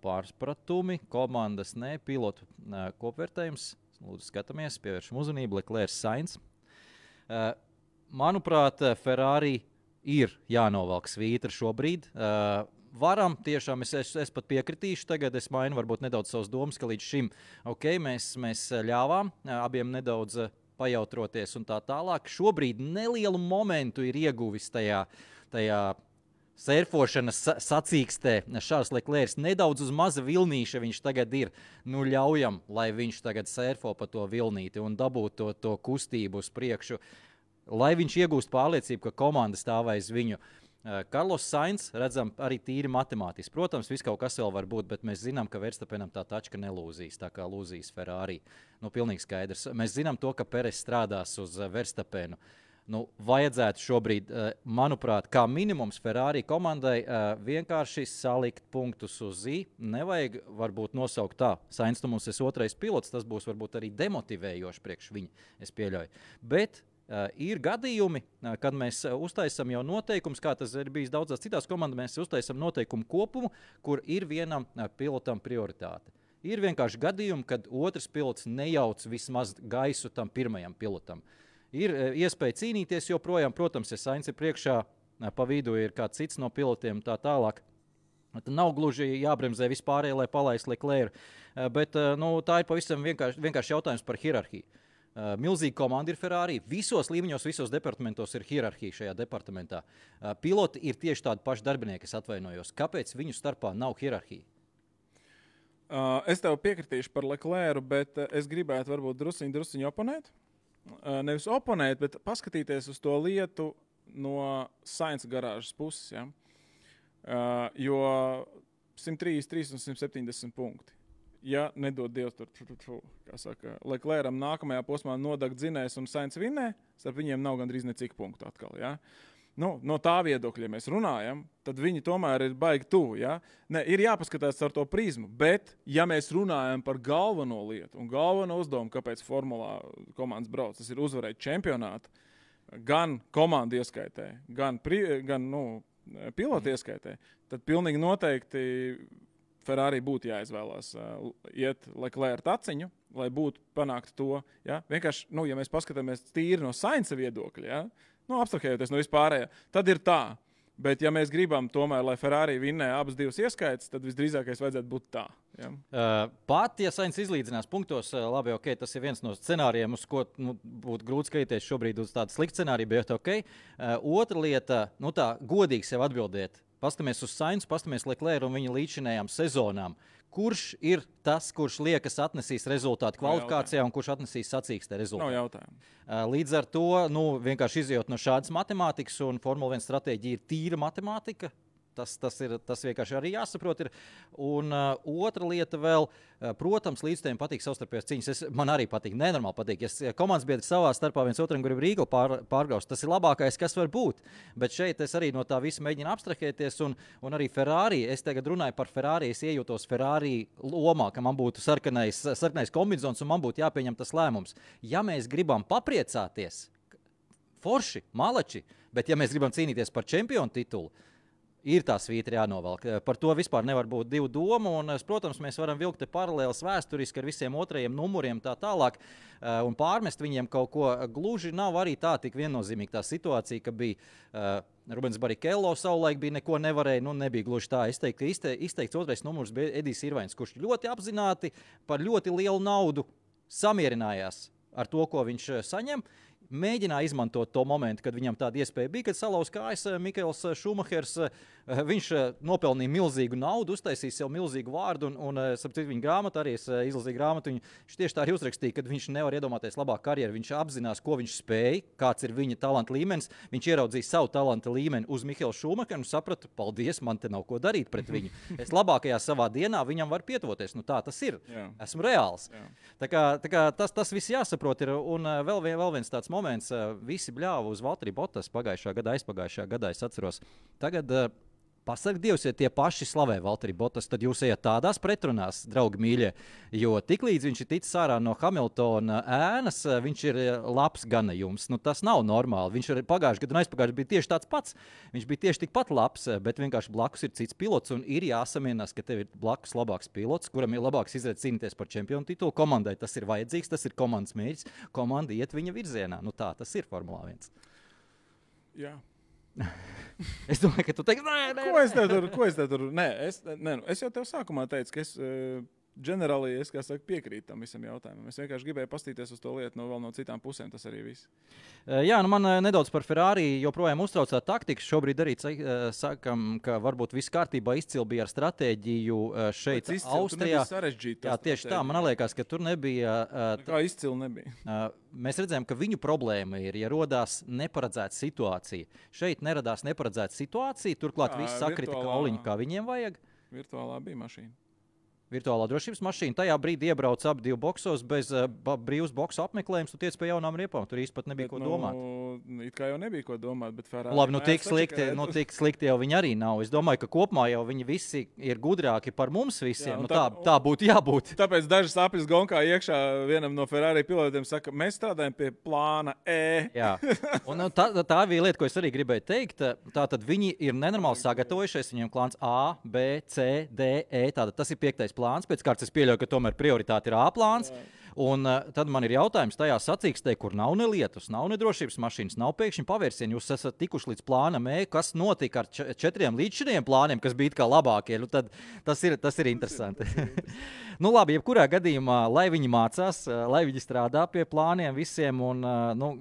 pārspratumi, komandas, pilotu kopvērtējums. Lūdzu, skatāmies, pievēršam uzmanību, Leclerc Sainz. Manuprāt, Ferrari ir jānovelk svītra šobrīd. Varam, tiešām es pat piekritīšu, tagad es mainu varbūt nedaudz savas domas, ka līdz šim mēs ļāvām abiem nedaudz pajautroties un tā tālāk. Šobrīd nelielu momentu ir ieguvis tajā sērfošanas sacīkstē. Šārs Leclerc nedaudz uz maza vilnīša viņš tagad ir. Nu ļaujam, lai viņš tagad sērfo pa to vilnīti un dabūtu to kustību uz priekšu, lai viņš iegūst pārliecību, ka komanda stāv aiz viņu. Carlos Sainz, redzam, arī tīri matemātiski. Protams, viss kaut kas vēl var būt, bet mēs zinām, ka Verstappenam tā tačka nelūzīs, tā kā lūzīs Ferrari. Nu, pilnīgi skaidrs. Mēs zinām to, ka Perez strādās uz Verstappenu. Nu, vajadzētu šobrīd, manuprāt, kā minimums Ferrari komandai vienkārši salikt punktus uz I. Nevajag varbūt nosaukt tā. Sainz, tu mums esi otrais pilots, tas būs varbūt arī demotivējoši priekš viņa, es pieļauju. Bet ir gadījumi, kad mēs uztaisam jau noteikums, kā tas ir bijis daudzās citās komandās, mēs uztaisam noteikumu kopumu, kur ir vienam pilotam prioritāte. Ir vienkārši gadījumi, kad otrs pilots nejauc vismaz gaisu tam pirmajam pilotam. Ir iespēja cīnīties joprojām, protams, ja Sainz ir priekšā, pa vidu ir kāds cits no pilotiem tā tālāk. Tad nav gluži jābremzē vispārēji, lai palaistu Leclerc, bet tā ir pavisam vienkārši jautājums par hierarhiju. Milzīga komanda ir Ferrari. Visos līmeņos, visos departamentos ir hierarhija šajā departamentā. Piloti ir tieši tādi paši darbinieki, es atvainojos. Kāpēc viņu starpā nav hierarhija? Es tev piekritīšu par Leclercu, bet es gribētu varbūt drusciņu oponēt. Nevis oponēt, bet paskatīties uz to lietu no Sainz garāžas puses. Ja? Jo 133 un 170 punkti. Ja nedod Dievs tur, kā saka, Leclercam nākamajā posmā nodagt dzinējs un Sainz vinnē, starp viņiem nav gandrīz necik punktu atkal. Ja? Nu, no tā viedokļa, ja mēs runājam, tad viņi tomēr ir baigi tuvu. Ja? Ne, ir jāpaskatās ar to prizmu, bet ja mēs runājam par galveno lietu un galveno uzdevumu, kāpēc formulā komandas brauc, tas ir uzvarēt čempionātu, gan komandu ieskaitē, gan pilotu ieskaitē, tad pilnīgi noteikti Ferrari būtu jāizvēlās iet Leclerc taciņu, lai būtu panākt to. Ja? Vienkārši, ja mēs paskatāmies tīri no Sainza viedokļa, ja? Abstrahējoties no vispārējā, tad ir tā. Bet, ja mēs gribam tomēr, lai Ferrari vinnē abas divas ieskaitas, tad visdrīzākais vajadzētu būt tā. Ja? Pat, ja Sainz izlīdzinās punktos, labi, ok, tas ir viens no scenārijiem, uz ko būtu grūti skatīties šobrīd uz tādu sliktu scenāriju, bet ok. Otra lieta, tā godīgi sev atbildēt. Pastamies uz Sainzu, pastamies Leclerc un viņa līdzinējām sezonām. Kurš ir tas, kurš liekas atnesīs rezultātu kvalifikācijā un kurš atnesīs sacīkstē rezultātu? Nav jautājumu. Līdz ar to, vienkārši izjūt no šādas matemātikas, un Formula 1 stratēģija ir tīra matemātika. Tas vienkārši arī jāsaprot. Un otra lieta vēl, protams, līdzstājiem patīk savstarpējās cīņas. Man arī patīk, nenormāli patīk. Ja komandas biedri savā starpā viens otram grib Rīgu pārgraust, tas ir labākais, kas var būt. Bet šeit es arī no tā visa mēģinu abstrahēties. Un arī Ferrari, es tagad runāju par Ferrari, es iejūtos Ferrari lomā, ka man būtu sarkanais kombinzons un man būtu jāpieņem tas lēmums. Ja mēs gribam papriecāties, forši, malači, bet ja mēs gribam cīnīties par čempionu titulu, ir tā svītra jānovelk. Par to vispār nevar būt divu domu, un, protams, mēs varam vilkt paralēlas vēsturiski ar visiem otrajiem numuriem tā tālāk, un pārmest viņiem kaut ko. Gluži nav arī tā tik viennozīmīgi tā situācija, ka bija Rubens Barrichello savulaik bija neko nevarēja, nebija gluži tā. Es teiktu, ka izteikts otrais numurs bija Edijs Irvains, kurš ļoti apzināti par ļoti lielu naudu samierinājās ar to, ko viņš saņem. Mēģināja izmantot to momentu, kad viņam tāda iespēja bija, kad salauz kājas Mikaels Šumahers. Viņš nopelnīja milzīgu naudu, uztaisīja sev milzīgu vārdu, un sapcīt viņa grāmatu, arī es izlasīju grāmatu, viņš tieši tā arī uzrakstīja, kad viņš nevar iedomāties labāku karjeru. Viņš apzinās, ko viņš spēja, kāds ir viņa talanta līmenis. Viņš ieraudzīja savu talanta līmeni uz Mikaelu Šumacheru un saprata, paldies, man te nav ko darīt pret viņu. Es labākajā savā dienā viņam var pietuvoties. Tā tas ir. Jā. Esmu reāls. Jā. Tā kā tas viss jāsaprot ir. Un vēl viens tāds moments, visi bļāva uz Valtteri Bottas pagājušā gada, aizpagājušā gadā, es atceros. Tagad Pasaka Dievs, ja tie paši slavē Valtteri Bottas, tad jūs ejat tādās pretrunās, draugi mīļie. Jo tiklīdz viņš ir ticis ārā no Hamiltona ēnas, viņš ir labs ganējums. Nu, tas nav normāli. Viņš ir pagājuši gadu un aizpagājuši bija tieši tāds pats. Viņš bija tieši tikpat labs, bet vienkārši blakus ir cits pilots un ir jāsamienās, ka tev ir blakus labāks pilots, kuram ir labāks izredzes cīnīties par čempionu titulu. Komandai tas ir vajadzīgs, tas ir komandas mērķis. Komanda iet viņa virzienā. Nu, tā tas ir Formulā 1. Jā. Es domāju, ka tu teiksi, Ko es tev tur? Nē, es jau tev sākumā teicu, ka es ģenerāli, kā saka, piekrītu tam visam jautājumam. Es vienkārši gribēju pastīties uz to lietu no citām pusēm, tas arī viss. Jā, nu man nedaudz par Ferrari joprojām uztraucā taktika. Šobrīd arī sakam, ka varbūt viss kārtībā izcili bija ar stratēģiju šeit Austrijā. Jā, tieši tā, man liekas, ka tur nebija. Kā izcili nebija. Mēs redzējām, ka viņu problēma ir, ja rodās neparedzēta situācija. Šeit neradās neparedzēta situācija, turklāt viss sakrita kauliņu, kā viņiem vajag. Virtuālā bija mašīna. Virtuālā drošības mašīna. Tajā brīdī iebrauc ap 2 boksos bez brīvas boksu apmeklējums. Tu tiec pie jaunām riepām. Tur īsti pat nebija ko domāt. It kā jau nebija ko domāt, bet Ferrari... Labi, nu tik slikti jau viņi arī nav. Es domāju, ka kopumā jau viņi visi ir gudrāki par mums visiem. Jā, tā būtu jābūt. Tāpēc daži sapnis gonkā iekšā vienam no Ferrari pilotiem saka, mēs strādājam pie plāna E. Jā. Un tā bija lieta, ko es arī gribēju teikt. Tātad viņi ir nenormāli sagatavojušies. Viņiem plāns A, B, C, D, E. Tātad tas ir 5. plāns, pēc kārtas es pieļauju, ka tomēr prioritāte ir A plāns. Un tad man ir jautājums tajā sacīkstē, kur nav ne lietus, nav ne drošības mašīnas, nav pēkšņi pavērsieni. Jūs esat tikuši līdz plānam E, kas notika ar 4 līdzšiniem plāniem, kas bija kā labākie. Nu, tad tas ir interesanti. Nu labi, jebkurā gadījumā, lai viņi mācās, lai viņi strādā pie plāniem visiem un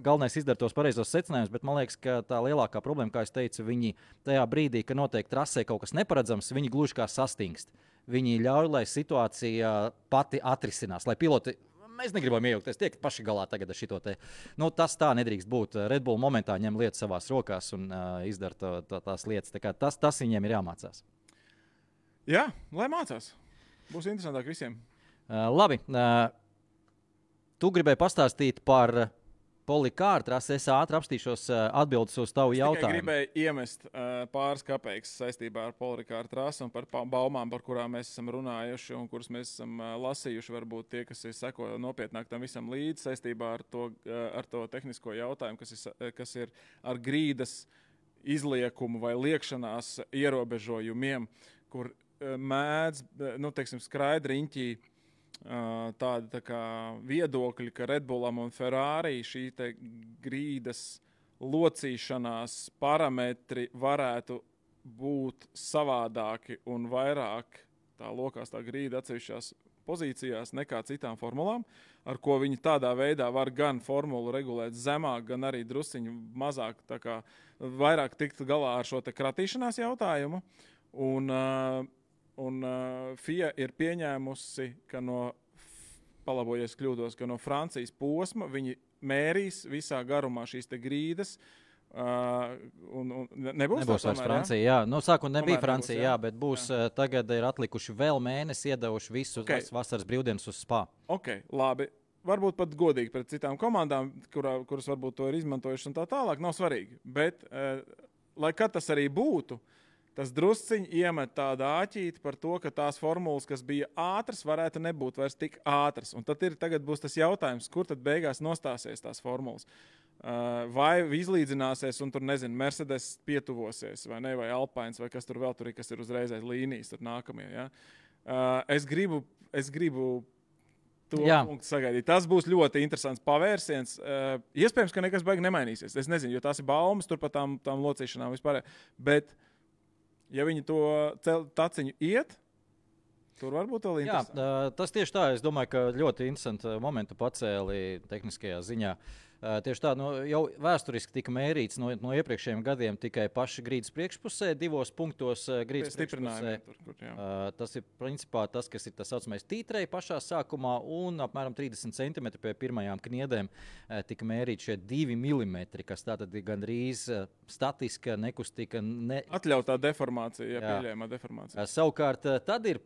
galvenais izdara tos pareizos secinājumus, bet man liekas, ka tā lielākā problēma, kā es teicu, viņi tajā brīdī, ka notiek trasē kaut kas neparedzams, viņi gluži kā sastingst. Viņi ļauj, lai situācija pati atrisinās, lai piloti, mēs negribam iejaukties, tiek paši galā tagad ar šito te. Nu, tas tā nedrīkst būt. Red Bull momentā ņem lietas savās rokās un izdara tās lietas. Tā kā tas viņiem ir jāmācās. Jā, lai mācās. Būs interesantāk visiem. Labi. Tu gribēji pastāstīt par Polikāru trasi. Es ātri apstīšos atbildes uz tavu jautājumu. Es gribēju iemest pāris kapeikas saistībā ar Polikāru trasi un par baumām, par kurām mēs esam runājuši un kuras mēs esam lasījuši. Varbūt tie, kas seko nopietnāk tam visam līdzi saistībā ar to tehnisko jautājumu, kas ir ar grīdas izliekumu vai liekšanās ierobežojumiem, kur mēdz, skraidriņķī tādi tā kā viedokļi, ka Red Bullam un Ferrari šī te grīdas locīšanās parametri varētu būt savādāki un vairāk tā lokās tā grīda atsevišķās pozīcijās nekā citām formulām, ar ko viņi tādā veidā var gan formulu regulēt zemāk, gan arī drusciņu mazāk, tā kā vairāk tikt galā ar šo te kratīšanās jautājumu. Un FIA ir pieņēmusi, ka palabojies kļūdos, ka no Francijas posma viņi mērīs visā garumā šīs te grīdas. Nebūs vairs Francija, jā. Nu, sākumā nebija Francija, jā, bet būs tagad ir atlikuši vēl mēnesi, iedevuši visu vasaras brīvdienas uz Spa. Ok, labi. Varbūt pat godīgi pret citām komandām, kuras varbūt to ir izmantojuši un tā tālāk, nav svarīgi. Bet, lai kad tas arī būtu, tas drusciņi iemet tādu āķīti par to, ka tās formulas, kas bija ātras, varētu nebūt vairs tik ātras. Un tagad būs tas jautājums, kur tad beigās nostāsies tās formulas. Vai izlīdzināsies un tur, nezinu, Mercedes pietuvosies, vai ne, vai Alpines, vai kas tur vēl tur ir, kas ir uzreiz aiz līnijas, tur nākamie. Ja? Es gribu to punktu sagaidīt. Tas būs ļoti interesants pavērsiens. Iespējams, ka nekas baigi nemainīsies. Es nezinu, jo tās ir baumas tur par tām locīšanām vispār. Bet ja viņi to taciņu iet, tur varbūt vēl interesanti. Jā, tas tieši tā. Es domāju, ka ļoti interesanti momentu pacēli tehniskajā ziņā. Tieši tā, jau vēsturiski tika mērīts no iepriekšējiem gadiem tikai paši grīdas priekšpusē, 2 punktos grīdas priekšpusē. Tas ir principā tas, kas ir tas saucamais tītrei pašā sākumā, un apmēram 30 cm pie pirmajām kniedēm tika mērīt šie 2 mm, kas tātad ir gandrīz statiska, nekustika. Atļautā deformācija, pieļējumā deformācija. Savukārt tad ir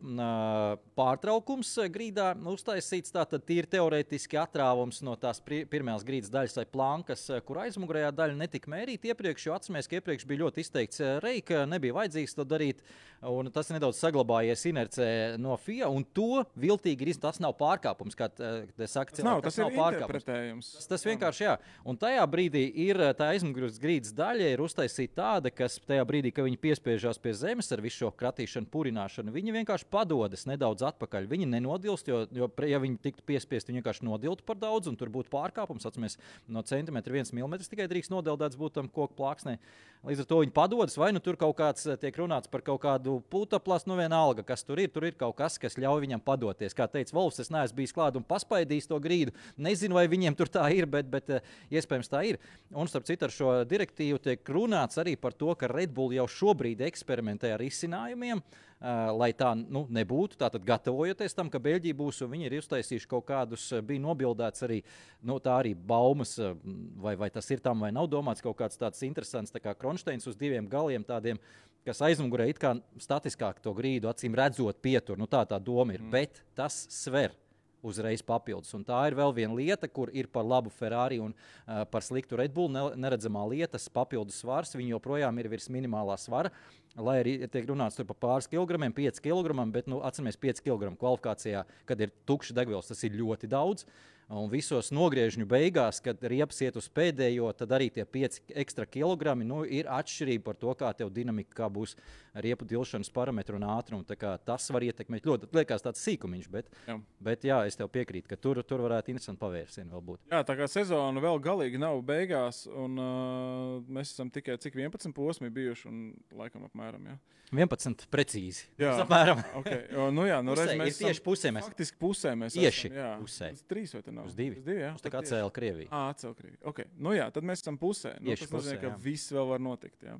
pārtraukums grīdā uztaisīts, tātad tīri teorētiski atrāvums no tās pirmās grīdas daļas daļas vai plankas, kur aizmugurējā daļa netika mērīta iepriekš, jo atceramies, ka iepriekš bija ļoti izteikts reika, nebija vajadzīgs to darīt, un tas nedaudz saglabājies inercē no FIA, un to viltīgi ir, tas nav pārkāpums, kā te saka cilvēki. Tas nav interpretējums. Tas vienkārši, jā. Un tajā brīdī ir tā aizmugures grīdas daļa ir uztaisīta tāda, kas tajā brīdī, kad viņi piespiežās pie zemes ar visu šo kratīšanu, purināšanu, viņi vienkārši padodas nedaudz atpakaļ. Viņi nenodilst, jo ja viņi tiktu piespiesti, viņi vienkārši nodiltu par daudz, un tur būtu pārkāpums. Atceramies, no centimetra 1 milimetrs tikai drīkst nodeldēts būt tam koku plāksnē. Līdz ar to viņi padodas, vai nu tur kaut kāds tiek runāts par kaut kādu putekļu, nu vienalga, kas tur ir kaut kas, kas ļauj viņam padoties. Kā teica Volfs, es neesmu bijis klāt un paspaidījis to grīdu. Nezinu, vai viņiem tur tā ir, bet iespējams tā ir. Un starp citu ar šo direktīvu tiek runāts arī par to, ka Red Bull jau šobrīd eksperimentē ar izcinājumiem, lai tā nebūtu. Tātad gatavojoties tam, ka Beļģija būs, un viņi ir uztaisījuši kaut kādus, bija nobildēts arī, tā arī baumas, vai tas ir tam, vai nav domāts kaut kāds tāds interesants, tā kā Kronšteins uz 2 galiem tādiem, kas aizmugurē it kā statiskāk to grīdu, acīm redzot pietur. Tā doma ir, bet tas sver uzreiz papildus. Un tā ir vēl viena lieta, kur ir par labu Ferrari un par sliktu Red Bull neredzamā lietas papildus svars. Viņi joprojām ir virs minimālā svara, lai arī tiek runāts tur par pāris kilogramiem, 5 kilogramiem, bet atceramies 5 kilogramu kvalifikācijā, kad ir tukšs degvielas, tas ir ļoti daudz. Un visos nogriežņu beigās, kad riepas iet uz pēdējo, tad arī tie 5 ekstra kilogrami ir atšķirība par to, kā tev dinamika, kā būs riepu dilšanas parametru un ātrumu. Tas var ietekmēt ļoti. Liekas tāds sīkumiņš, bet jā, es tev piekrītu, ka tur varētu interesanti pavērsieni vēl būt. Jā, tā kā sezona vēl galīgi nav beigās, un mēs esam tikai cik 11 posmi bijuši, un laikam apmēram, jā. 11 precīzi. Jā, apmēram. Okay. Mēs tieši pusē mēs. Faktiski pusē mēs tieši esam. Pusē. Uz 3 vai te nav? Uz 2. Uz 2, jā. Uz tā kā atcēla Krieviju. Atcēla Krieviju. Okay. Tad mēs esam pusē. Tieši tas nozīmē, ka viss vēl var notikt, jā.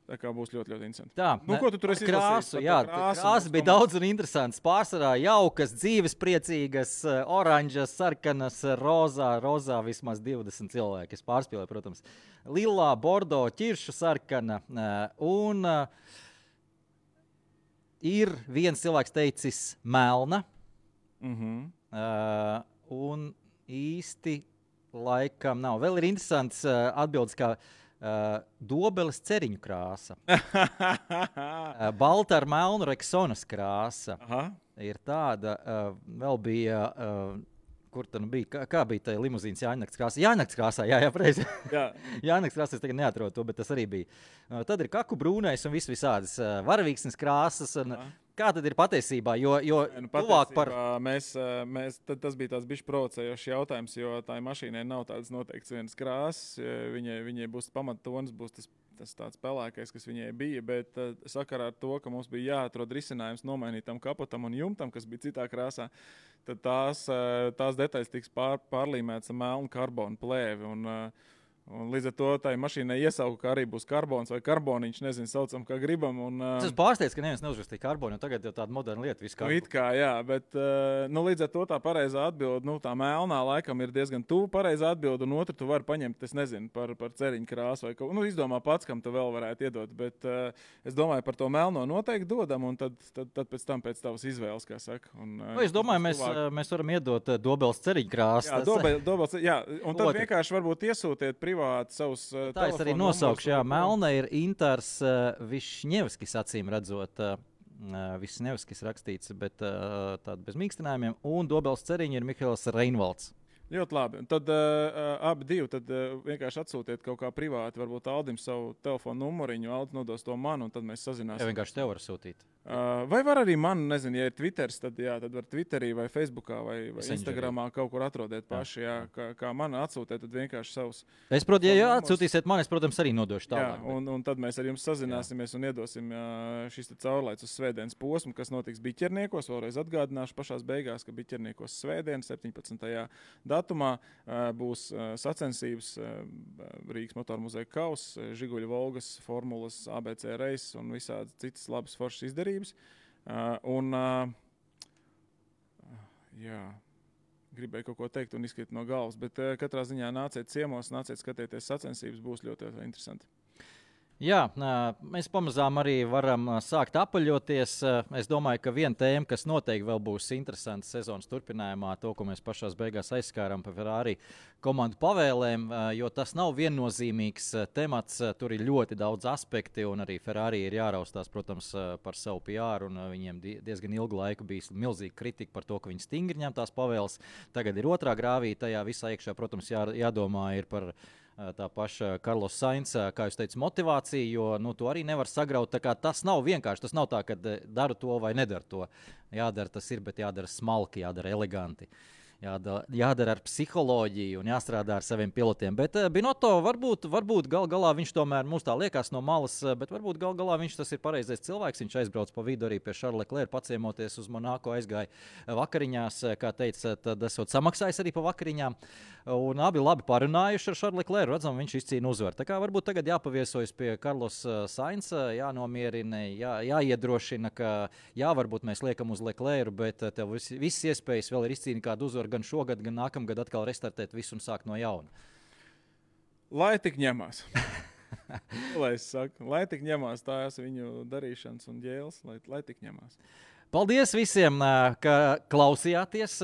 Tā kā būs ļoti, ļoti interesanti. Tā, ko tu tur esi krāsu? Jā, krāsas bija daudz un interesants. Pārsvarā jaukas, dzīves priecīgas, oranžas, sarkanas, rozā vismaz 20 cilvēki. Es pārspēlēju, protams, lilā, bordo, ķiršu sarkana un ir viens cilvēks teicis melna. Un īsti laikam nav. Vēl ir interesants atbildes, kā dobeles ceriņu krāsa. Balta ar melnu Rexonas krāsa. Aha. Ir tāda, vēl bija, kur tad bija, kā bija tā limuzīnas Jāņakts krāsā? Jāņakts krāsā, jā, preizi. Jā. Jāņakts krāsā, es tagad neatrodu to, bet tas arī bija. Tad ir kaku brūnais un visādas varavīksnes krāsas. Kā tad ir patiesībā? Jo tuvāk par... Tas bija tāds bišķi provocējošs jautājums, jo tā mašīnai nav tādas noteikts vienas krāsas. Viņai būs pamattonis, būs tas tāds pelēkais, kas viņai bija, bet sakarā ar to, ka mums bija jāatrod risinājums nomainītam kapotam un jumtam, kas bija citā krāsā, tad tās detaļas tiks pārlīmētas ar melnu karbonu plēvi. Un līdz ar to tai mašīnai iesauku, ka arī būs karbons vai karboniņš, nezinu, saucam, kā gribam. Es pārsteidzu, ka neviens neuzrakstīja karbonu, jo tagad jau tāda moderna lieta viss karbonu. It kā, jā, bet līdz ar to tā pareizā atbilde, tā melnā laikam ir diezgan tuvu pareizā atbilde, un otru tu vari paņemt, es nezinu, par ceriņu krāsu vai kaut ko. Izdomā pats, kam tu vēl varētu iedot, bet es domāju, par to melno noteikti dodam, un tad pēc tam pēc tavas izvēles, kā saka. Es domāju, mēs varam iedot dobeles ceriņu krāsu. Jā, dobeles, jā, un tad vienkārši varbūt iesūtiet savus tā es arī nosaukšu, jā, melna ir Intars Višņevskis, acīm redzot, Višņevskis rakstīts, bet tāda bez mīkstinājumiem, un dobeles ceriņa ir Mihails Reinvalds. Ļoti labi. Tad abi divi vienkārši atsūtiet kaut kā privāti, varbūt Aldim savu telefonu numuriņu, Aldis nodos to man, un tad mēs sazināsim. Jā, vienkārši tev var sūtīt. Vai var arī man, nezinu, ja ir Twitters, tad var Twitterī vai Facebookā vai Instagramā kaut kur atrodiet paši, kā man atsūtiet, tad vienkārši savus. Es, protams, ja atsūtīsiet man, es, protams, arī nodošu tālāk. Jā, un tad mēs ar jums sazināsimies un iedosim šis caurlaids uz svētdienas posmu, kas notiks Biķerniekos. Vēlreiz atgādināšu pašās beigās, ka Biķerniekos svētdien 17. datumā būs sacensības Rīgas motoru muzeja kauss, Žiguļu Volgas, formulas, ABC reis un visādi citas labas foršas izdarības. Gribēju kaut ko teikt un izkrīt no galvas, bet katrā ziņā nāciet ciemos, nāciet skatieties sacensības, būs ļoti interesanti. Jā, mēs pamazām arī varam sākt apaļoties. Es domāju, ka viena tēma, kas noteikti vēl būs interesanta sezonas turpinājumā, to, ko mēs pašās beigās aizskārām par Ferrari komandu pavēlēm, jo tas nav viennozīmīgs temats. Tur ir ļoti daudz aspekti, un arī Ferrari ir jāraustās, protams, par savu PR, un viņiem diezgan ilgu laiku bija milzīga kritika par to, ka viņi stingri ņem tās pavēles. Tagad ir otrā grāvī, tajā visā iekšā, protams, jādomā ir par tā paša Carlos Sainz, kā jūs teicat, motivācija, jo to arī nevar sagraut. Tā kā tas nav vienkārši, tas nav tā, ka daru to vai nedaru to. Jādara tas ir, bet jādara smalki, jādara eleganti. Jādara ar psiholoģiju un jāstrādā ar saviem pilotiem. Bet Binotto varbūt gal galā viņš tomēr mums tā liekas no malas, bet varbūt gal galā viņš tas ir pareizais cilvēks. Viņš aizbrauc pa vidu arī pie Charlesa Leclerca, paciemoties uz Monako, aizgāja vakariņās, kā teica, tad esot samaksājis arī pa vakariņām. Un abi labi parunājuši ar Charlesu Leclercu, redzam, viņš izcīna uzvaru. Tā kā varbūt tagad jāpaviesojas pie Carlosa Sainza, jānomierina, jāiedrošina, ka jā, varbūt mēs liekam uz Leclercu, bet tev viss iespējas vēl ir izcīnīt kādu uzvaru gan šogad, gan nākamgad atkal restartēt visu un sākt no jauna. Lai tik ņemās. Lai es saku, lai tik ņemās tās viņu darīšanas un ģēles, lai tik ņemās. Paldies visiem, ka klausījāties.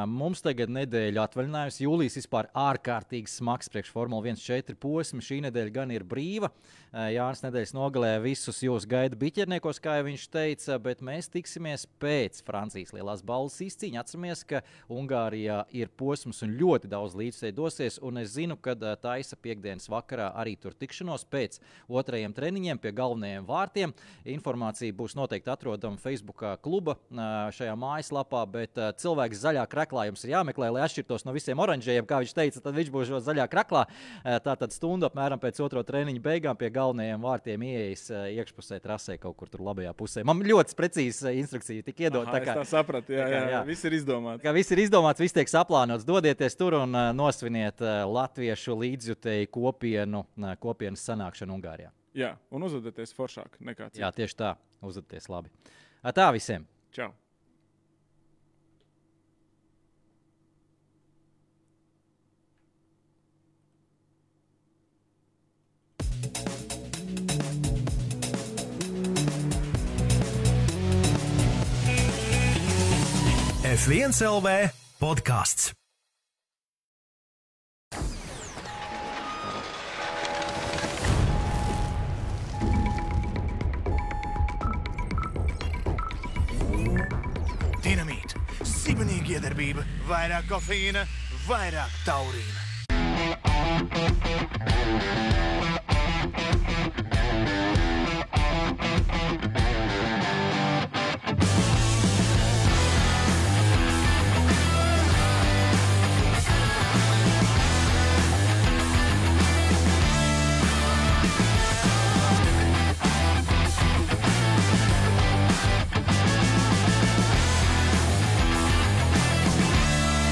Mums tagad nedēļa atvaļinājums. Jūlijas vispār ārkārtīgi smags priekš Formula 1.4 posmi. Šī nedēļa gan ir brīva. Jānis nedēļas nogalē visus jūs gaida biķerniekos, kā jau viņš teica, bet mēs tiksimies pēc Francijas lielās balvas izcīņa. Atceramies, ka Ungārijā ir posms un ļoti daudz līdzstēji dosies, un es zinu, ka taisa piekdienas vakarā arī tur tikšanos pēc otrajiem treniņiem pie galvenajiem vārtiem. Informācija būs noteikti atrodama Facebookā kluba šajā mājaslapā, bet cilvēks zaļā kraklā jums ir jāmeklē, lai atšķirtos no visiem oranžējiem, kā viņš teica, tad viņš būs zaļā kraklā. Tātad stundu apmēram pēc otro treniņa beigām pie galvenajiem vārtiem ieejas iekšpusē trasē kaut kur tur labajā pusē. Man ļoti precīzi instrukcija tik iedot. Es tā sapratu, jā. Viss ir izdomāts. Viss ir izdomāts, viss tiek saplānots. Dodieties tur un nosviniet latviešu līdzjutēju kopienas sanākšanu Ungārijā. Jā, un uzvedieties foršāk nekā citi. Jā, tieši tā. Uzvedieties labi. Tā visiem. Čau. F1 LV podcasts. Dinamīt, sibenīga iedarbība, vairāk kofeīna, vairāk taurīna.